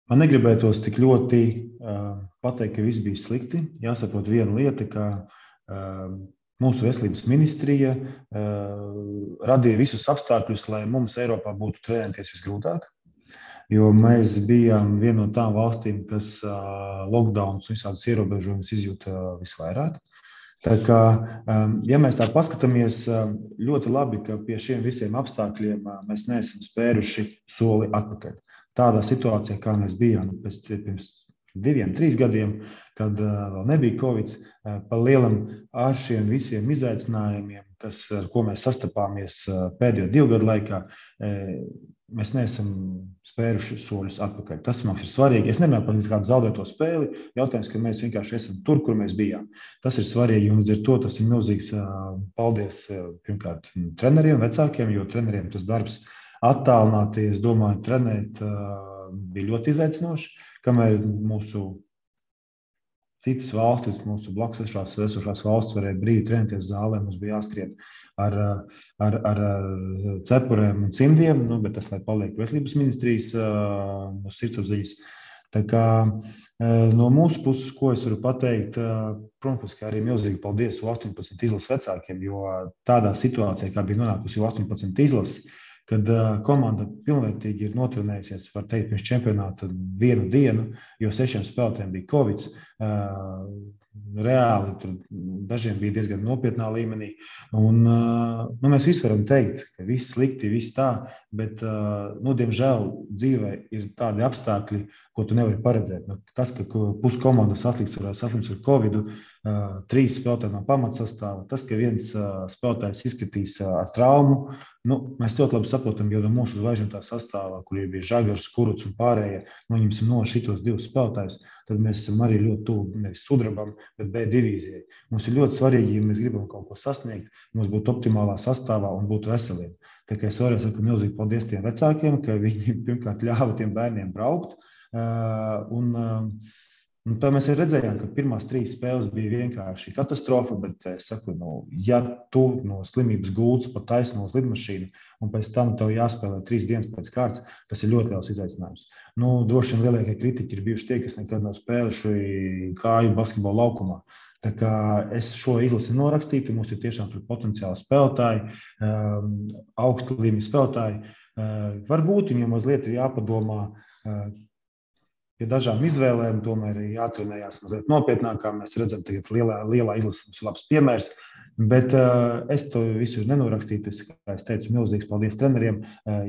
man negribētos tik ļoti pateikt, ka viss bija slikti. Jāsaprot viena lieta, ka mūsu veselības ministrija radīja visus apstākļus, lai mums Eiropā būtu trenēties visgrūtāk. Jo mēs bijām viena no tām valstīm, kas lockdowns un visādas ierobežojumus izjūta visvairāk. Tā kā, ja mēs tā paskatāmies, ļoti labi, ka pie šiem visiem apstākļiem mēs neesam spēruši soli atpakaļ. Tādā situācijā, kā mēs bijām pirms 2-3 gadiem, kad vēl nebija Covid, pa lielam ar šiem visiem izaicinājumiem, ar ko mēs sastapāmies pēdējo 2 gadu laikā, mēs neesam spēruši soļus atpakaļ. Tas mums ir svarīgi. Es nemanāju par kādu zaudēto spēli. Jautājums, ka mēs vienkārši esam tur, kur mēs bijām. Tas ir svarīgi, un līdz ar to tas ir milzīgs paldies pirmkārt treneriem, vecākiem, jo treneriem tas darbs attālināti, es domāju, trenēt bija ļoti izaicinoši, kamēr mūsu citas valstis, mūsu blakus esošās valstis varēja brīvi trenēties zālē, mums bija jāskrien ar cepurēm un cimdiem, bet tas, lai paliek veselības ministrijas mūsu sirdsapziņas. Tā kā no mūsu puses, ko es varu pateikt, protams, ka arī milzīgi paldies U18 izlases vecākiem, jo tādā situācijā, kā bija nonākusi U18 izlases, kad komanda pilnvērtīgi ir notrenējusies, var teikt, pirms čempionāta 1 dienu, jo 6 spēlētājiem bija Covid. Reāli tur dažiem bija diezgan nopietnā līmenī. Un, mēs visi varam teikt, ka viss slikti, viss tā, bet, diemžēl dzīvē ir tādi apstākļi, ko tu nevari paredzēt. Tas, ka pusi komandas saslims ar Covidu, 3 spēlētāji no pamatsastāva, tas, ka viens spēlētājs izskatīs ar traumu, mēs ļoti labi saprotam, jo no mūsu zvaigžņotā sastāvā, kur bija Žagars, Kurucs un pārējie, noņemsim no šitos 2 spēlētājus, tad mēs esam arī ļoti tuvu nevis sudrabam, bet B divīzijai. Mums ir ļoti svarīgi, ja mēs gribam kaut ko sasniegt, mums būtu optimālā sastāvā un būtu veseliem. Tā kā es varu saku milzīgi paldies tiem vecākiem, ka viņi pirmkārt ļāva tiem bērniem braukt. Un Un tā mēs redzējām, ka pirmās 3 spēles bija vienkārši katastrofa, bet es saku, ja tu no slimības gultas pa taisno uz lidmašīnu un pēc tam tev jāspēlē 3 dienas pēc kārtas, tas ir ļoti liels izaicinājums. Droši vien lielākie kritiķi ir bijuši tie, kas nekad nav spēluši kāju basketbola laukumā. Tā kā es šo izlasi norakstītu, mums ir tiešām potenciāli spēlētāji, augstu līmeņa spēlētāji. Varbūt viņiem mazliet ir jāpadomā pie dažām izvēlēm, tomēr ir jātrenējās mazliet nopietnākā. Mēs redzam, ka lielā izlase mums ir labs piemērs, bet es to visu nenorakstītu. Kā es teicu, milzīgs paldies treneriem.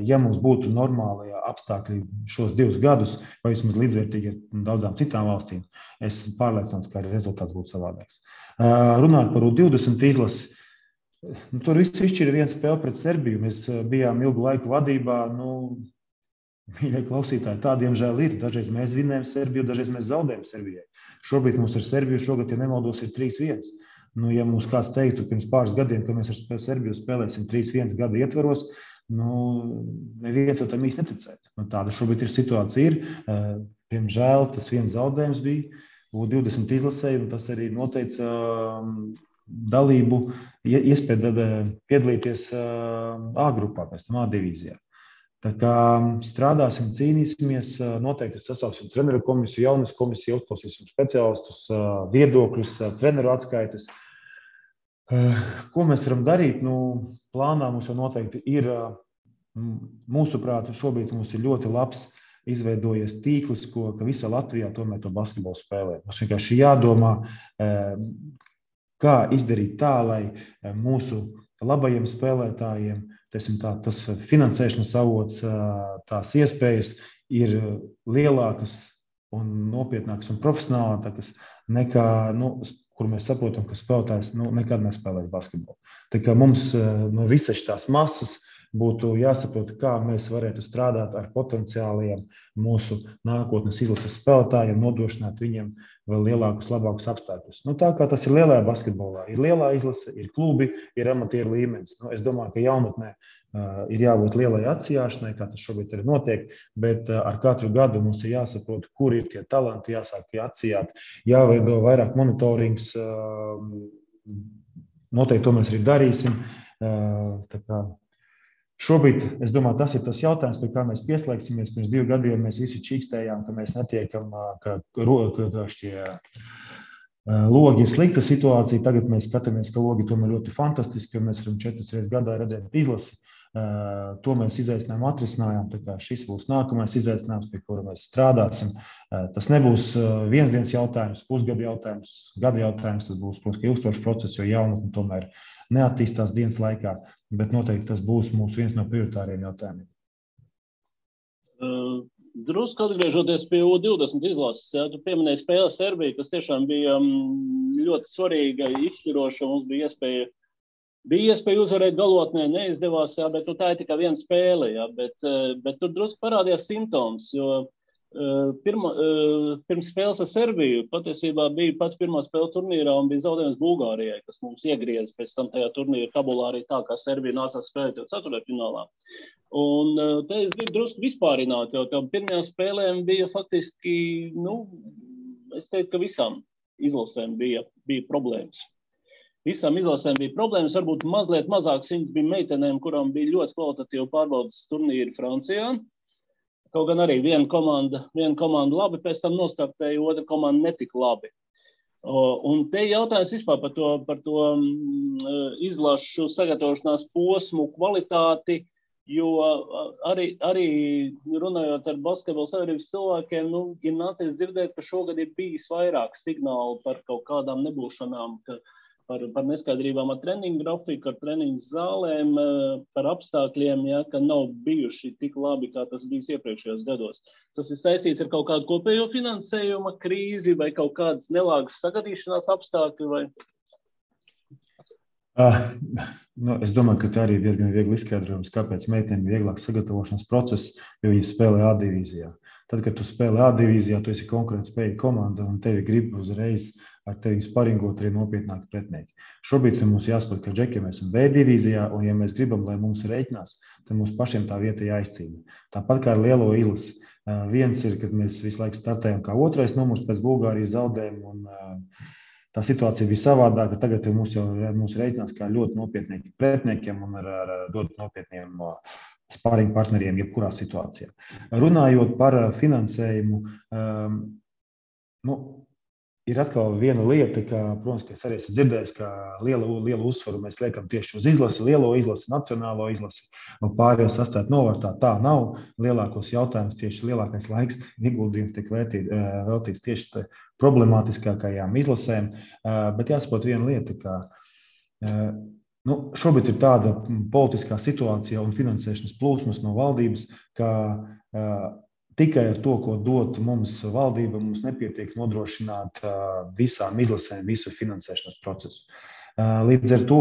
Ja mums būtu normāli apstākļi šos 2 gadus, vai vismaz līdzvērtīgi ar daudzām citām valstīm, es pārliecināts, ka arī rezultāts būtu savādāks. Runāt par U20 izlasi. Tur viss izšķira 1 spēle pret Serbiju. Mēs bijām ilgu laiku vadībā. Mīļie klausītāji, tā diemžēl ir. Dažreiz mēs vinējam Serbiju, dažreiz mēs zaudējam Serbijai. Šobrīd mums ar Serbiju šogad, ja nemaldos, ir 3-1. Ja mums kāds teiktu pirms pāris gadiem, ka mēs ar Serbiju spēlēsim 3-1 gada ietvaros, neviens jau tam īsti neticētu. Tāda šobrīd ir situācija. Diemžēl tas viens zaudējums bija U20 izlasē, un tas arī noteica dalību, iespēju piedalīties A grupā, pēc tam A divīzijā. Tā kā strādāsim, cīnīsimies, noteikti sasauksim treneru komisiju, jaunas komisiju, uzklausīsim speciālistus, viedokļus, treneru atskaites. Ko mēs varam darīt? Plānā mums jau noteikti ir, mūsuprāt, šobrīd mums ir ļoti labs izveidojies tīkls, ka visā Latvijā tomēr to basketbolu spēlē. Mums vienkārši jādomā, kā izdarīt tā, lai mūsu labajiem spēlētājiem tas finansēšanas avots, tās iespējas ir lielākas un nopietnākas un profesionālākas nekā, kur mēs saprotam, ka spēlētājs nekad nespēlēs basketbolu. Tā kā mums no visas tās masas būtu jāsaprot, kā mēs varētu strādāt ar potenciāliem mūsu nākotnes izlases spēlētājiem, nodrošināt viņiem vēl lielākus, labākus apstākļus. Tā kā tas ir lielajā basketbolā, ir lielā izlase, ir klubi, ir amatieru līmenis. Es domāju, ka jaunatnē ir jābūt lielai atsijāšanai, kā tas šobrīd arī notiek, bet ar katru gadu mums ir jāsaprot, kur ir tie talanti, jāsāk atsijāt, jāveido vairāk monitorings. Noteikti to mēs arī darīsim. Tā kā šobrīd, es domāju, tas ir tas jautājums, pie kā mēs pieslēgsimies. Pirms 2 gadiem mēs visi čīkstējām, ka mēs netiekam, ka šie logi ir slikta situācija. Tagad mēs skatāmies, ka logi tomēr ļoti fantastiski, jo mēs varam 4 reizes gadā redzēt izlasi. To mēs izaicinājumu atrisinājām. Tā kā šis būs nākamais izaicinājums, pie kura mēs strādāsim. Tas nebūs viens dienas jautājums, pusgada jautājums, gada jautājums. Tas būs, protams, ilgstošs process, jo jaunatne tomēr neattīstās dienas laikā. Bet noteikti tas būs viens no prioritāriem jautājumiem. Drusku atgriežoties pie U20 izlases, tu pieminēji spēli Serbiju, kas tiešām bija ļoti svarīga, izšķiroša. Mums bija iespēja uzvarēt galotnē, neizdevās, bet tā ir tikai viena spēle. Bet tur drusku parādījās simptoms, jo pirms spēles ar Serbiju patiesībā bija pats pirmā spēle turnīrā un bija zaudējums Bulgārijai, kas mums iegrieza pēc tam tajā turnīra tabulā arī tā, kā Serbija nācās spēlēt jau ceturtfinālā. Un te es gribu drusku vispārināt, jo tam pirmajām spēlēm bija faktiski, es teiktu, ka visām izlasēm bija problēmas. Visām izlasēm bija problēmas, varbūt mazliet mazāk simts bija meitenēm, kurām bija ļoti kvalitatīvi pārbaudas turnīri Francijā. Kaut gan arī viena komanda labi, pēc tam nostartēja, otra komanda netika labi. Un te jautājums vispār par to izlašu sagatavošanās posmu kvalitāti, jo arī runājot ar basketbola sabiedrības cilvēkiem, ir nācies dzirdēt, ka šogad ir bijis vairāk signālu par kaut kādām nebūšanām, par neskaidrībām ar treniņu grafiku, ar treniņu zālēm, par apstākļiem, ka nav bijuši tik labi, kā tas bijis iepriekšējos gados. Tas ir saistīts ar kaut kādu kopējo finansējuma krīzi vai kaut kādas nelāgas sagadīšanās apstākļi? Vai? Es domāju, ka tā arī ir diezgan viegli izskaidrojums, kāpēc meitenēm ir vieglāk sagatavošanas process, jo viņi spēlē A divīzijā. Tad, kad tu spēlē A divīzijā, tu esi konkurētspējīga komanda un tevi grib uzreiz ar tevi sparingot arī nopietnāki pretinieki. Šobrīd mums jāsaprot, ka džeki mēs esam B divīzijā, un ja mēs gribam, lai mums reiķinās, tad mums pašiem tā vieta jāizcīna. Tāpat kā ar lielo izlasi. Viens ir, kad mēs visu laiku startējam kā otrais numurs pēc Bulgārijas zaudējuma, un tā situācija bija savādāka. Tagad mūsu reiķinās kā ļoti nopietniem pretniekiem un ar ļoti nopietniem sparring partneriem jebkurā situācijā. Runājot par finansējumu, ir atkal viena lieta, ka, protams, ka es arī esmu dzirdējis, ka lielu uzsvaru mēs liekam tieši uz izlasi, lielo izlasi, nacionālo izlasi, un pārējo sastāt novārtā. Tā nav. Lielākos jautājumus tieši lielākais laiks ieguldījums tiek veltīts tieši problemātiskākajām izlasēm, bet jāsaprot viena lieta, ka šobrīd ir tāda politiskā situācija un finansēšanas plūsmas no valdības, ka tikai ar to, ko dot mums valdība, mums nepietiek nodrošināt visām izlasēm visu finansēšanas procesu. Līdz ar to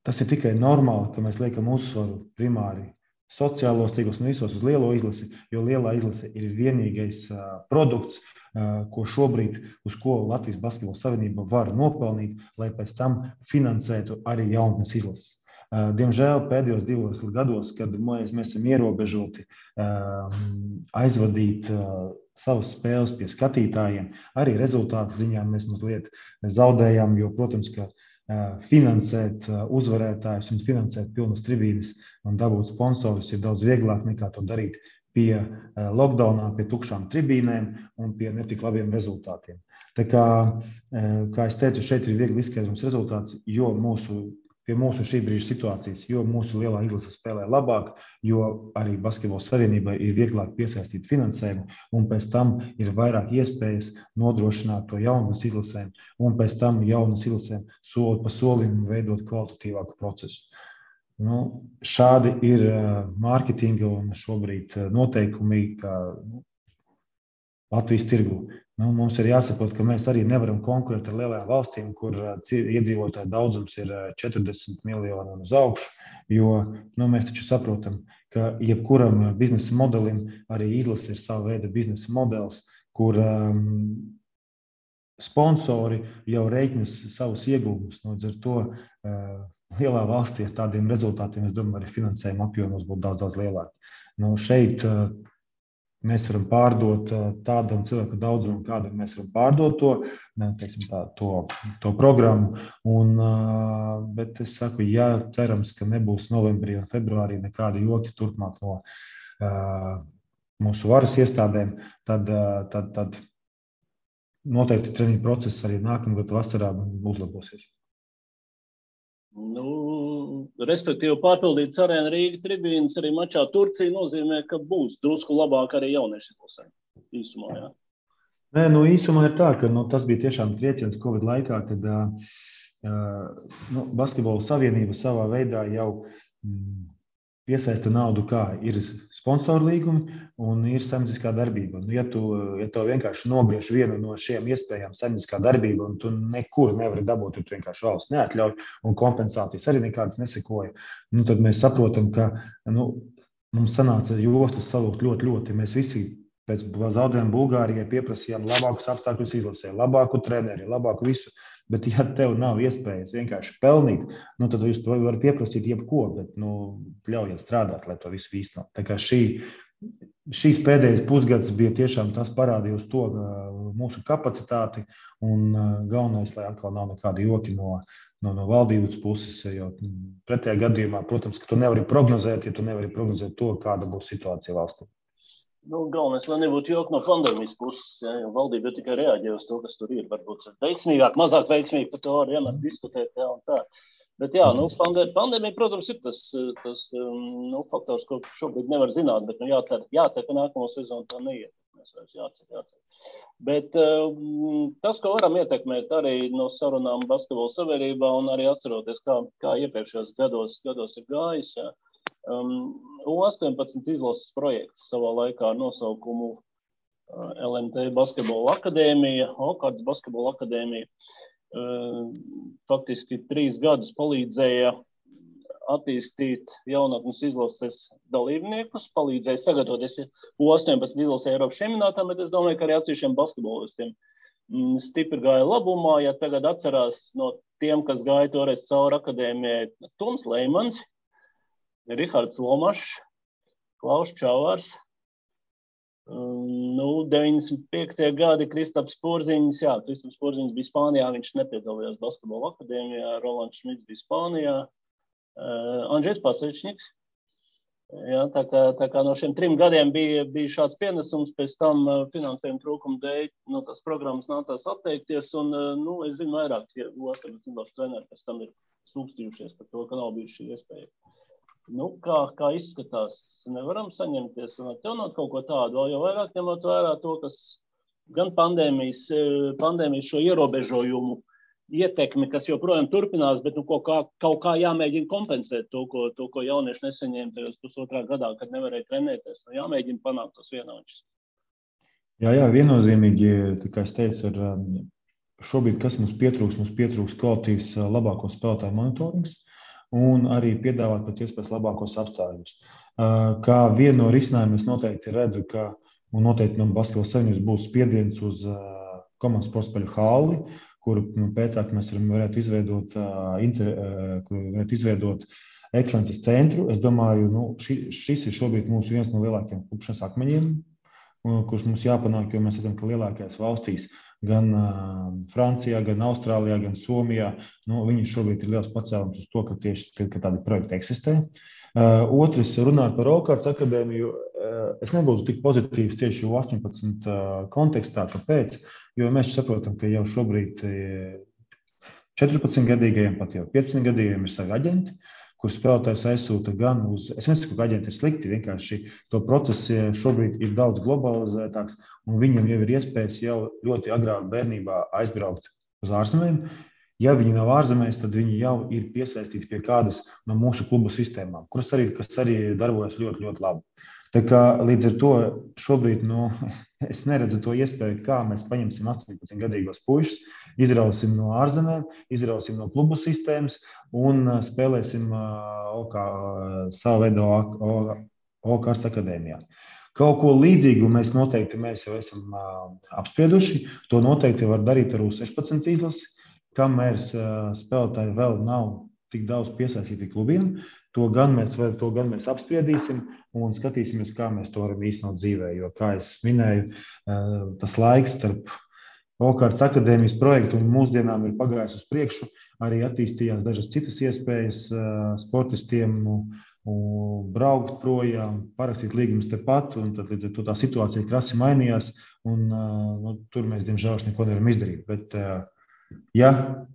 tas ir tikai normāli, ka mēs liekam uzsvaru primāri sociālos tīklos un visos uz lielo izlasi, jo lielā izlase ir vienīgais produkts, ko šobrīd, uz ko Latvijas Basketbola Savienība var nopelnīt, lai pēc tam finansētu arī jaunatnes izlases. Diemžēl pēdējos 2 gados, kad mēs esam ierobežoti aizvadīt savas spēles pie skatītājiem, arī rezultātu ziņā mēs mazliet zaudējām, jo, protams, ka finansēt uzvarētājus un finansēt pilnas tribīnes un dabūt sponsorus ir daudz vieglāk nekā to darīt pie lockdownā, pie tukšām tribīnēm un pie netik labiem rezultātiem. Tā kā es teicu, šeit ir viegli izskaidrums rezultāts, jo pie mūsu šī brīža situācijas, jo mūsu lielā izlase spēlē labāk, jo arī Basketbola Savienībai ir vieglāk piesaistīt finansējumu, un pēc tam ir vairāk iespējas nodrošināt to jaunas izlasēm, un pēc tam jaunas izlasēm soli pa solim veidot kvalitatīvāku procesu. Šādi ir mārketinga un šobrīd noteikumi, ka Latvijas tirgu. Mums ir jāsaprot, ka mēs arī nevaram konkurēt ar lielajām valstīm, kur iedzīvotāju daudzums ir 40 miljoni un uz augšu, jo mēs taču saprotam, ka jebkuram biznesa modelim arī izlase ir sava veida biznesa modelis, kur sponsori jau rēķinas savus ieguvumus. Līdz ar to lielā valstī ar tādiem rezultātiem, es domāju, arī finansējuma apjomos būtu daudz lielāk. Šeit mēs varam pārdot tādam cilvēku daudzumu, kādam mēs varam pārdot to programmu. Bet es saku, cerams, ka nebūs novembrī un februārī nekādi joki turpmāk no mūsu varas iestādēm, tad noteikti treniņu process arī nākamgad vasarā uzlabosies. Respektīvi, pārpildīts arēna Rīga tribīnas arī mačā Turcija nozīmē, ka būs drusku labāk arī jaunieši izlasē. Īsumā, jā. Nē, īsumā ir tā, ka tas bija tiešām trieciens Covid laikā, kad Basketbola Savienība savā veidā jau piesaista naudu, kā ir sponsoru līgumi un ir saimnieciskā darbība. Ja tu vienkārši nogriež vienu no šiem iespējām saimnieciskā darbība un tu nekur nevari dabūt, tu vienkārši valsts neatļauj un kompensācijas arī nekādas nesekoja, tad mēs saprotam, ka mums sanāca jostas salūkt ļoti. Mēs visi pēc zaudējuma Bulgārijai pieprasījām labākus apstākļus izlasē, labāku treneri, labāku visu. Bet, ja tev nav iespējas vienkārši pelnīt, tad jūs to varat pieprasīt jebko, bet ļaujiet strādāt, lai to visu īstenot. Tā kā šīs pēdējais pusgads bija tiešām tas parādīja uz to mūsu kapacitāti un galvenais, lai atkal nav nekādi joki no valdības puses, jo pretējā gadījumā, protams, ka tu nevari prognozēt, ja tu nevari prognozēt to, kāda būs situācija valstī. Galvenais, lai nebūtu joki no pandēmijas puses, jo valdība tikai reaģē uz to, kas tur ir. Varbūt veiksmīgāk, mazāk veiksmīgi, par to var vienmēr diskutēt, un tā. Bet pandēmija, protams, ir tas faktors, ko šobrīd nevar zināt, bet jācer, ka nākamo sezonu tā neietekmēs. Jācer. Bet tas, ko varam ietekmēt arī no sarunām Basketbola Savienībā un arī atceroties, kā iepriekšējos gados ir gājis, U18 izlases projekts savā laikā ar nosaukumu LMT Basketbola akadēmija, Okārtas Basketbola akadēmija. Faktiski 3 gadus palīdzēja attīstīt jaunatnes izlases dalībniekus, palīdzēja sagatavoties U18 izlasē Eiropas čempionātā, bet es domāju, ka arī atsevišķiem basketbolistiem stipri gāja labumā. Ja tagad atcerās no tiem, kas gāja toreiz cauri akadēmijai, Toms Leimans, Rihards Lomašs, Klaus Čavārs, 95. gadi Kristaps Porziņš, Kristaps Porziņš bija Spānijā, viņš nepiedalījās basketbola akadēmijā, Rolands Šmits bija Spānijā, Andžejs Pasečņiks. Jā, tā kā no šiem 3 gadiem bija šāds pienesums, pēc tam finansējuma trūkuma dēļ tās programmas nācās atteikties, un es zinu vairāk, ja U18 treneri pēc tam ir sūkstījušies par to, ka nav bijuši šī iespēja. Kā izskatās, nevaram saņemties un atjaunot kaut ko tādu, vēl jau vairāk ņemot vērā to, kas gan pandēmijas šo ierobežojumu ietekmi, kas joprojām turpinās, bet kaut kā jāmēģina kompensēt to, ko jaunieši nesaņēma tajos pusotrā gadā, kad nevarēja trenēties. Jāmēģina panākt tos vienāčus. Jā, viennozīmīgi, tā kā es teicu, šobrīd, kas mums pietrūks kvalitīvs labāko spēlētāju monitorings, un arī piedāvāt pēc iespējas labākos apstākļus. Kā vienu no risinājumiem es noteikti redzu, ka noteikti no Basketbola Savienības būs spiediens uz komandas sportspēļu halli, kuru pēcāk mēs varētu izveidot ekscelences centru. Es domāju, šis ir šobrīd mūsu viens no lielākajiem klupšanas akmeņiem, kurš mums jāpanāk, jo mēs redzam, ka lielākajās valstīs gan Francijā, gan Austrālijā, gan Somijā. Viņi šobrīd ir liels pacēlums uz to, ka tieši tādi projekti eksistē. Otrs, runāt par Okārtas akadēmiju, es nebūtu tik pozitīvs tieši U18 kontekstā. Kāpēc? Jo mēs saprotam, ka jau šobrīd 14-gadīgajiem, pat jau 15-gadīgajiem ir savi aģenti, kur spēlētājs aizsūta gan uz... Es nesaku, ka aģenti ir slikti, vienkārši to procesu šobrīd ir daudz globalizētāks, un viņam jau ir iespējas jau ļoti agrā bērnībā aizbraukt uz ārzemēm. Ja viņi nav ārzemēs, tad viņi jau ir piesaistīti pie kādas no mūsu klubu sistēmām, kas arī darbojas ļoti, ļoti labi. Tā kā līdz ar to šobrīd es neredzu to iespēju, kā mēs paņemsim 18-gadīgos puišus, izrausim no ārzemēm, izrausim no klubu sistēmas un spēlēsim savu veidu Okārtas akadēmijā. Kaut ko līdzīgu mēs jau esam apsprieduši. To noteikti var darīt ar U16 izlasi, kamēr spēlētāji vēl nav tik daudz piesaistīti klubiem. To gan mēs apspriedīsim un skatīsimies, kā mēs to varam īstenot dzīvē. Jo, kā es minēju, tas laiks starp Okārtas akadēmijas projektu un mūsdienām ir pagājis uz priekšu. Arī attīstījās dažas citas iespējas sportistiem braukt projām, parakstīt līgumus tepat, un tad līdz ar to tā situācija krasi mainījās, un tur mēs, diemžēl, neko nevaram izdarīt. Bet, ja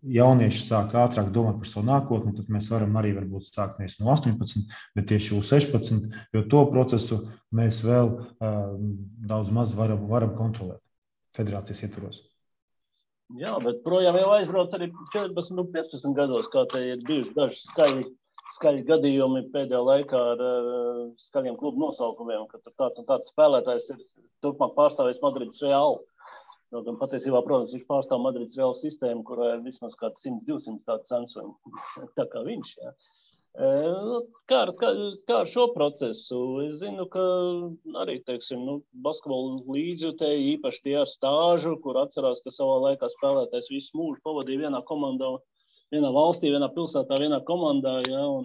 jaunieši sāk ātrāk domāt par savu nākotni, tad mēs varam arī varbūt sākt nevis no 18, bet tieši U16, jo to procesu mēs vēl daudz maz varam kontrolēt federācijas ietvaros. Jā, bet projām jau aizbrauc arī 14 un 15 gados, kā te ir bijuši daži skaļi gadījumi pēdējā laikā ar skaļiem klubu nosaukumiem, ka tāds un tāds spēlētājs ir turpmāk pārstāvējis Madrides Reālu. Gan patiesībā, protams, viņš pārstāv Madrides Reālu sistēmu, kurā ir vismaz kāds 100-200 tādu censojumu, tā kā viņš. Jā. Kā ar šo procesu? Es zinu, ka arī, basketbolu līdzjutēji, īpaši tie ar stāžu, kur atcerās, ka savā laikā spēlētājs visu mūžu pavadīja vienā komandā, vienā valstī, vienā pilsētā, vienā komandā, jā, un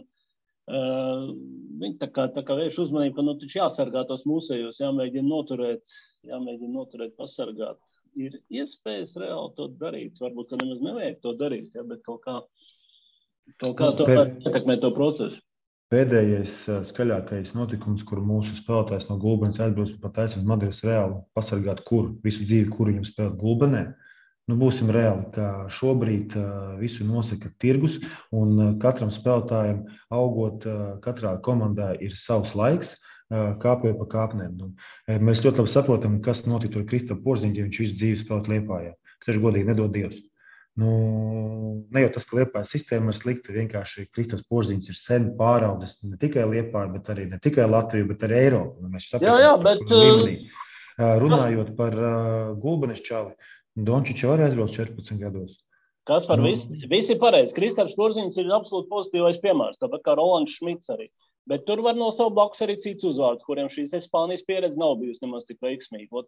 viņi tā kā vērš uzmanību, ka taču jāsargā tos mūsējos, jāmēģina noturēt, pasargāt. Ir iespējas reāli to darīt, varbūt, ka nemaz nevajag to darīt, jā, bet kaut kā to ietekmē to procesu. Pēdējais skaļākais notikums, kur mūsu spēlētājs no Gulbenes aizbrauc pat aizsūtīt Madrides Reālu pasargāt visu dzīvi, kuru viņam spēlēt Gulbenē. Būsim reāli, ka šobrīd visu nosaka tirgus, un katram spēlētājam augot katrā komandā ir savs laiks, kāpjot pa kāpnēm. Mēs ļoti labi saprotam, kas notika ar Kristapu Porziņu, ja viņš visu dzīvi spēlēt Liepājā. Taču godīgi nedod Dievs. Ne jau tas, ka Liepājas sistēma ir slikta, vienkārši Kristaps Porziņš ir sen pāraudzis ne tikai Liepāju, bet arī ne tikai Latviju, bet arī Eiropu. Mēs saprotam, bet līmenī. Runājot par Gulbenes čali, Dončičs arī aizbrauc 14 gados. Kas par visi pareizi. Kristaps Porziņš ir absolūti pozitīvais piemērs, tāpat kā Rolands Šmits arī. Bet tur var no savu blakus arī cits uzvārds, kuriem šīs Spānijas pieredze nav bijusi nemaz tik veiksmīga.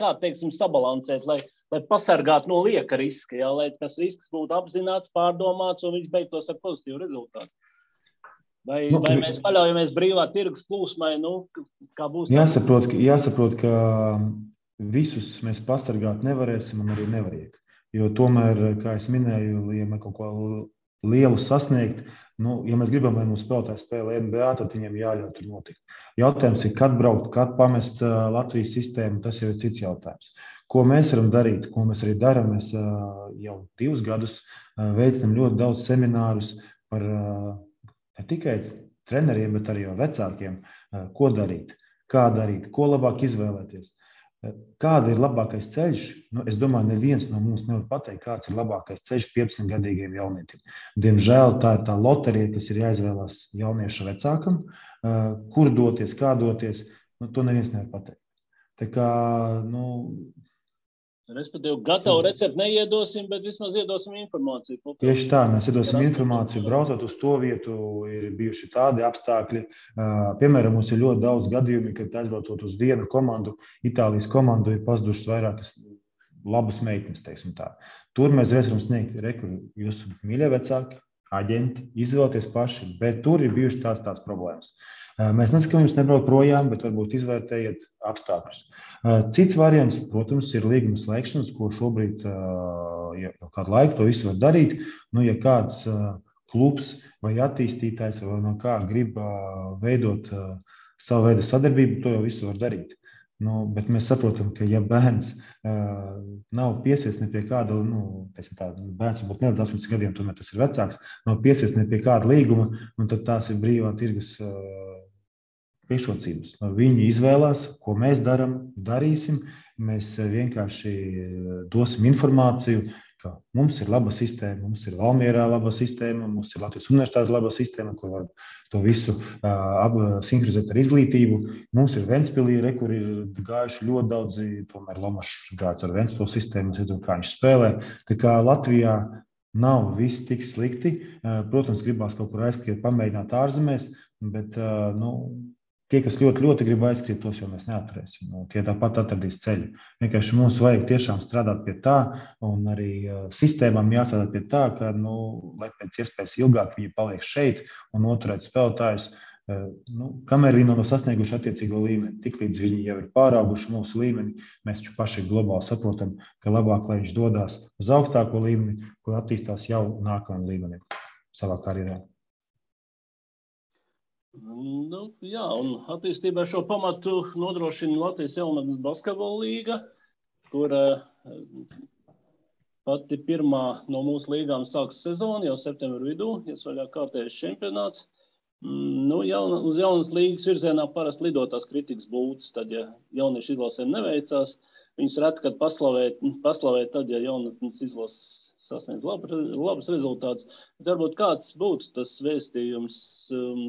Kā, sabalansēt, lai pasargātu no lieka riska, jā, lai tas risks būtu apzināts, pārdomāts un viņš beigtos ar pozitīvu rezultātu. Vai mēs paļaujamies brīvā tirgus plūsmai, kā būs? Jāsaprot, ka visus mēs pasargāt nevarēsim un arī nevajag. Jo tomēr, kā es minēju, ja mēs kaut ko lielu sasniegt, ja mēs gribam, lai mūsu spēlētāji spēlē NBA, tad viņiem jāļauj tur notikt. Jautājums ir, kad braukt, kad pamest Latvijas sistēmu, tas jau ir cits jautājums. Ko mēs varam darīt, ko mēs arī darām, mēs jau 2 gadus veicam ļoti daudz seminārus par ne tikai treneriem, bet arī vecākiem, ko darīt, kā darīt, ko labāk izvēlēties. Kāda ir labākais ceļš? Es domāju, neviens no mums nevar pateikt, kāds ir labākais ceļš 15-gadīgiem jaunietim. Diemžēl tā ir tā loterija, kas ir jāizvēlās jaunieša vecākam, kur doties, kā doties, to neviens nevar pateikt. Tā kā, respektīvi, gatavu recepti neiedosim, bet vismaz iedosim informāciju. Tieši tā, mēs iedosim informāciju. Braucot uz to vietu, ir bijuši tādi apstākļi. Piemēram, mums ir ļoti daudz gadījumi, kad aizbraucot uz vienu komandu, Itālijas komandu, ir pazudušas vairākas labas meitenes, teiksim tā. Tur mēs varam sniegt jūsu mīļie vecāki, aģenti, izvēlēties paši, bet tur ir bijušas tās problēmas. Mēs nesakām, jums nebraukt projām, bet varbūt izvērtējiet apstākļus. Cits variants, protams, ir līguma slēgšanas, ko šobrīd jau kādu laiku to visu var darīt. Ja kāds klubs vai attīstītājs vai no kā grib veidot savu veidu sadarbību, to jau visu var darīt. Bet mēs saprotam, ka ja bērns nav piesies ne pie kāda, bērns varbūt ne līdz 18 gadiem, tomēr tas ir vecāks, nav piesies ne pie kāda līguma, tad tās ir brīvā tirgus priekšrocības. Viņi izvēlās, ko mēs darīsim. Mēs vienkārši dosim informāciju, ka mums ir laba sistēma, mums ir Valmierā laba sistēma, mums ir Latvijas universitātes laba sistēma, kur var to visu sinhronizēt ar izglītību. Mums ir Ventspilī, kur ir gājuši ļoti daudzi, tomēr Lomašs gājis ar Ventspilu sistēmu, redzam, kā viņš spēlē. Tā kā Latvijā nav viss tik slikti. Protams, gribās kaut kur aizskriet, pamēģināt ārzemēs, bet tie, kas ļoti, ļoti grib aizskriet, tos jau mēs neatturēsim. Tie tāpat atradīs ceļu. Vienkārši mums vajag tiešām strādāt pie tā, un arī sistēmām jāstrādā pie tā, ka, lai pēc iespējas ilgāk viņi paliek šeit un noturēt spēlētājus, kamēr viņi nav sasnieguši attiecīgo līmeni. Tiklīdz viņi jau ir pārauguši mūsu līmeni, mēs taču paši globāli saprotam, ka labāk, lai viņš dodās uz augstāko līmeni, kur attīstās jau nākamajam līmenim savā karjerā. Jā, un attīstībā šo pamatu nodrošina Latvijas jaunatnes basketbola līga, kur pati pirmā no mūsu līgām sāks sezonu jau septembra vidū, iesvaļā kārtējais čempionāts. Uz jaunas līgas virzienā parasti lidotās kritikas būtas, tad, ja jauniešu izlasēm neveicās, viņus reti, kad paslavēt tad, ja jaunatnes izlases sasniedz labus rezultātus. Bet varbūt kāds būtu tas vēstījums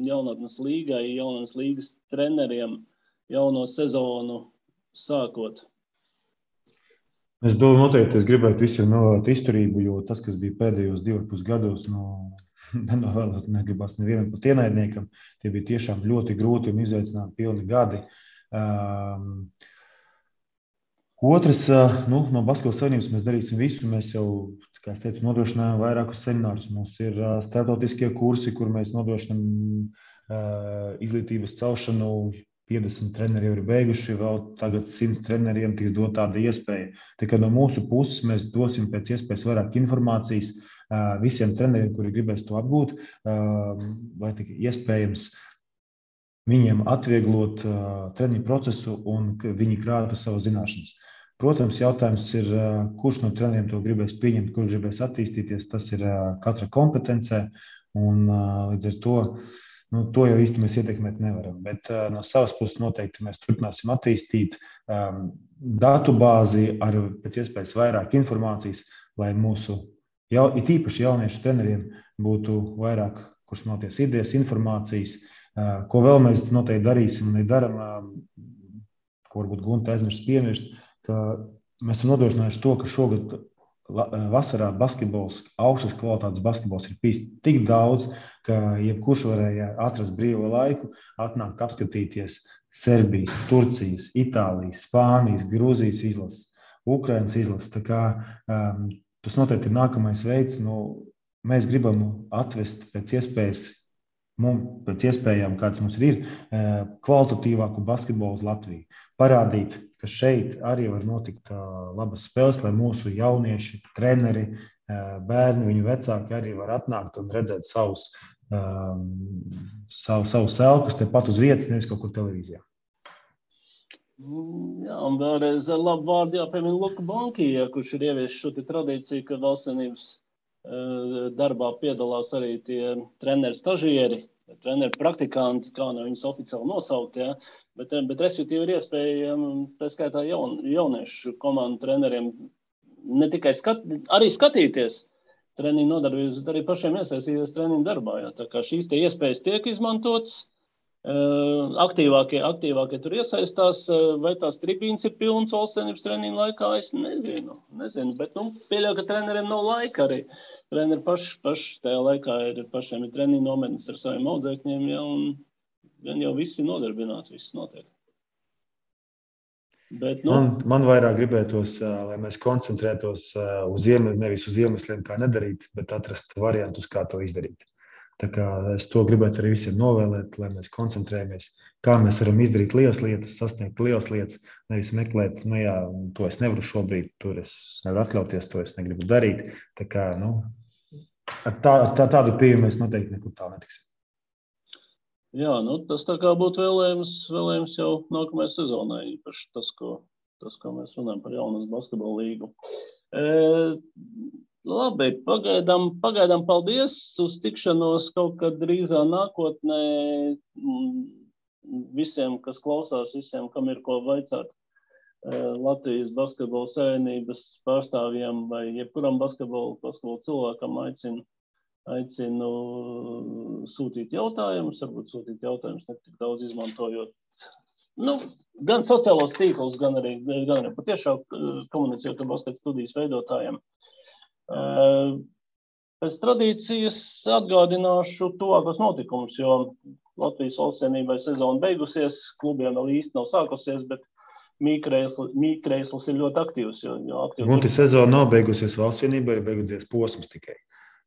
jaunatnes līgai, jaunatnes līgas treneriem jauno sezonu sākot? Es domāju, noteikti es gribētu visiem novēlēt izturību, jo tas, kas bija pēdējos 2,5 gados, nenovēlēt negribas nevienam pat ienaidniekam. Tie bija tiešām ļoti grūti un izaicinājumi pilni gadi. Otrs, no Basketbola savienības mēs darīsim visu. Mēs jau, kā es teicu, nodrošinājām vairākus seminārus. Mums ir starptautiskie kursi, kur mēs nodrošinām izglītības celšanu. 50 treneri jau ir beiguši, vēl tagad 100 treneriem tiks dot tāda iespēja. Tā kā no mūsu puses mēs dosim pēc iespējas vairāk informācijas visiem treneriem, kuri gribēs to apgūt, lai tik iespējams viņiem atvieglot treniņu procesu un viņi krātu savu zināšanas. Protams, jautājums ir, kurš no treneriem to gribēs pieņemt, kurš gribēs attīstīties, tas ir katra kompetencē, un līdz ar to jau īsti mēs ietekmēt nevaram. Bet no savas puses noteikti mēs turpināsim attīstīt datu bāzi ar pēc iespējas vairāk informācijas, lai mūsu, it īpaši jauniešu treneriem, būtu vairāk, kurš smelties idejas, informācijas. Ko vēl mēs noteikti darīsim un darām, ko varbūt Gunta aizmirst piemirst, ka mēs esam nodrošinājuši to, ka šogad vasarā basketbols, augstas kvalitātes basketbols ir bijis tik daudz, ka jebkurš varēja atrast brīvo laiku, atnākt apskatīties Serbijas, Turcijas, Itālijas, Spānijas, Grūzijas izlases, Ukrainas izlases. Tā kā tas noteikti ir nākamais veids. Mēs gribam atvest pēc iespējas mums pēc iespējām, kāds mums ir, kvalitatīvāku basketbolu uz Latviju. Parādīt, ka šeit arī var notikt labas spēles, lai mūsu jaunieši, treneri, bērni, viņu vecāki arī var atnākt un redzēt savus selkus tepat uz vietas, nevis kaut kur televīzijā. Jā, un vēlreiz ar labu vārdu jāpiemina Luka Bankija, kurš ir ievies šo tradīciju, ka valstsvienības darbā piedalās arī tie treneri stažieri, treneri praktikanti, kā no viņus oficiāli nosaukt, ja? bet respektīvi ir iespēja, tā skaitā jauniešu komandu treneriem, ne tikai arī skatīties treniņu nodarbības, bet arī pašiem iesaistīties treniņu darbā. Ja? Tā kā šīs tie iespējas tiek izmantotas, aktīvākie tur iesaistās, vai tās tribīnes ir pilnas valstsvienības treniņu laikā, es nezinu, bet pieļauju, ka treneriem nav laika arī. Treneri paši tajā laikā pašiem ir treniņu nometnes ar saviem audzēkņiem, ja, un jau visi nodarbināti, viss notiek. Bet, Man vairāk gribētos, lai mēs koncentrētos nevis uz iemesliem, kā nedarīt, bet atrast variantus, kā to izdarīt. Tā kā es to gribētu arī visiem novēlēt, lai mēs koncentrējamies, kā mēs varam izdarīt lielas lietas, sasniegt lielas lietas, nevis meklēt, to es nevaru šobrīd, tur es nevaru atļauties, to es negribu darīt. Tā kā, tādu pieeju mēs noteikti nekur tā netiksim. Jā, tas tā kā būtu vēlējums jau nākamajai sezonai, īpaši tas, ko mēs runājam par jaunas basketbola līgu. Labi, pagaidām paldies uz tikšanos kaut kad drīzā nākotnē visiem, kas klausās, visiem, kam ir ko vaicāt Latvijas basketbola savienības pārstāvjiem vai jebkuram basketbola cilvēkam aicinu sūtīt jautājumus, varbūt sūtīt jautājumus ne tik daudz izmantojot gan sociālos tīklus, gan arī patiešām komunicējot ar basket studijas veidotājiem. Pēc tradīcijas atgādināšu tuvākos notikumus, jo Latvijas valstsvienībai sezona beigusies, klubiem vēl īsti nav sākusies, bet Mīkreisls ir ļoti aktīvs. Gunti, sezona nav beigusies, valstsvienībai ir beigusies posms tikai.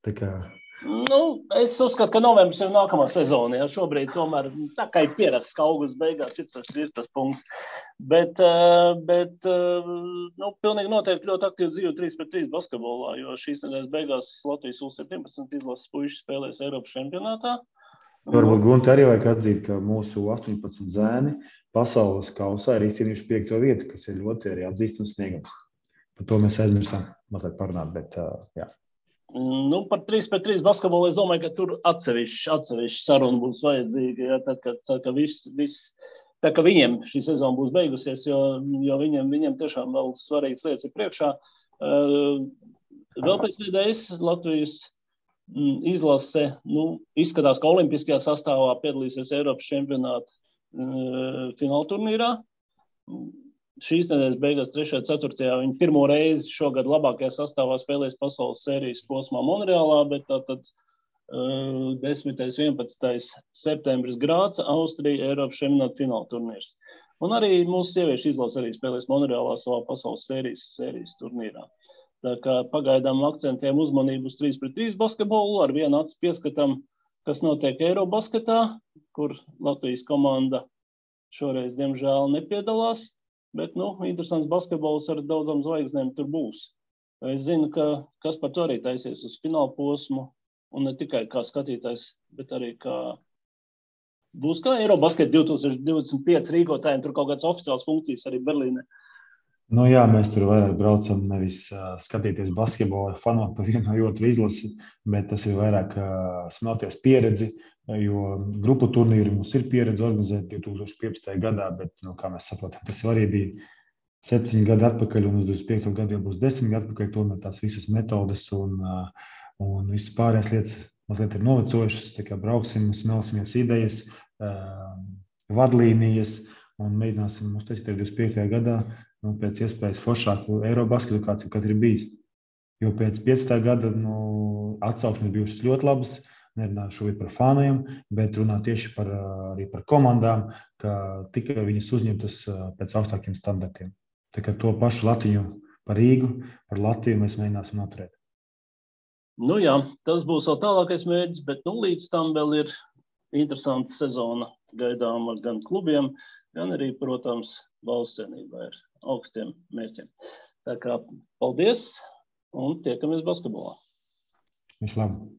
Tā kā... Es uzskatu, ka novembris ir nākamā sezona. Ja? Šobrīd tomēr tā kā ir pierasts, ka augusts beigās ir tas punkts. Bet pilnīgi noteikti ļoti aktīvi dzīvo 3-3 basketbolā, jo šīs nedēļas beigās Latvijas U17 izlases puiši spēlēs Eiropas čempionātā. Varbūt Gunti arī vajag atzīt, ka mūsu 18 zēni pasaules kausā ir izcīnījuši 5. vietu, kas ir ļoti arī atzīstams sniegums. Par to mēs aizmirsām mazliet parunāt, bet jā. Par 3-3 basketbolu es domāju, ka tur atsevišķi saruna būs vajadzīga, ja, tā ka viņiem šī sezona būs beigusies, jo viņiem tiešām vēl svarīgas lietas ir priekšā. Vēl pēc nedēļas Latvijas izlase izskatās, ka olimpiskajā sastāvā piedalīsies Eiropas čempionāta finālturnīrā. Šīs nedēļas beigās 3. 4. viņi pirmo reizi šogad labākajā sastāvā spēlēs pasaules sērijas posmā Monreālā, bet tātad 10. 11. septembris Grāca, Austrija, Eiropas čempionāta fināla turnīrs. Un arī mūsu sieviešu izlase arī spēlēs Monreālā savā pasaules sērijas turnīrā. Tā kā pagaidām akcentējam uzmanību uz 3-3 basketbolu, ar vienu acu pieskatam, kas notiek Eirobasketā, kur Latvijas komanda šoreiz, diemžēl, nepiedalās. Bet, interesants basketbols ar daudzām zvaigznēm tur būs. Es zinu, ka kas par to arī taisies uz fināla posmu, un ne tikai kā skatītājs, bet arī būs kā Eirobasket 2025 rīkotājiem, tur kaut kādas oficiālas funkcijas arī Berlīnē. Jā, mēs tur vairāk braucam nevis skatīties basketbolu, fanot par vienu vai otru izlasi, bet tas ir vairāk smelties pieredzi, jo grupu turnīri mums ir pieredze organizēt 2015. gadā, bet, kā mēs saprotam, tas arī bija 7 gadi atpakaļ, un uz 25. gadu jau būs 10 gadi atpakaļ, tomēr tās visas metodes un visas pārējās lietas mazliet ir novecojušas, tā kā brauksim, smelsimies idejas, vadlīnijas, un mēģināsim uztaisīt 25. gadā, pēc iespējas foršāku Eirobasketu, kāds jau katrs ir bijis. Jo pēc 15. gada atsauksmes bijušas ļoti labas, nerunāju šobrīd par fāniem, bet runā tieši arī par komandām, ka tikai viņas uzņemtas pēc augstākiem standartiem. Tā kā to pašu Latviņu par Rīgu, par Latviju mēs mēģināsim noturēt. Jā, tas būs vēl tālākais mērķis, bet līdz tam vēl ir interesanta sezona gaidāma gan klubiem, gan arī, protams, valsts vienībai ar augstiem mērķiem. Tā kā paldies un tiekamies basketbolā. Vislabāk!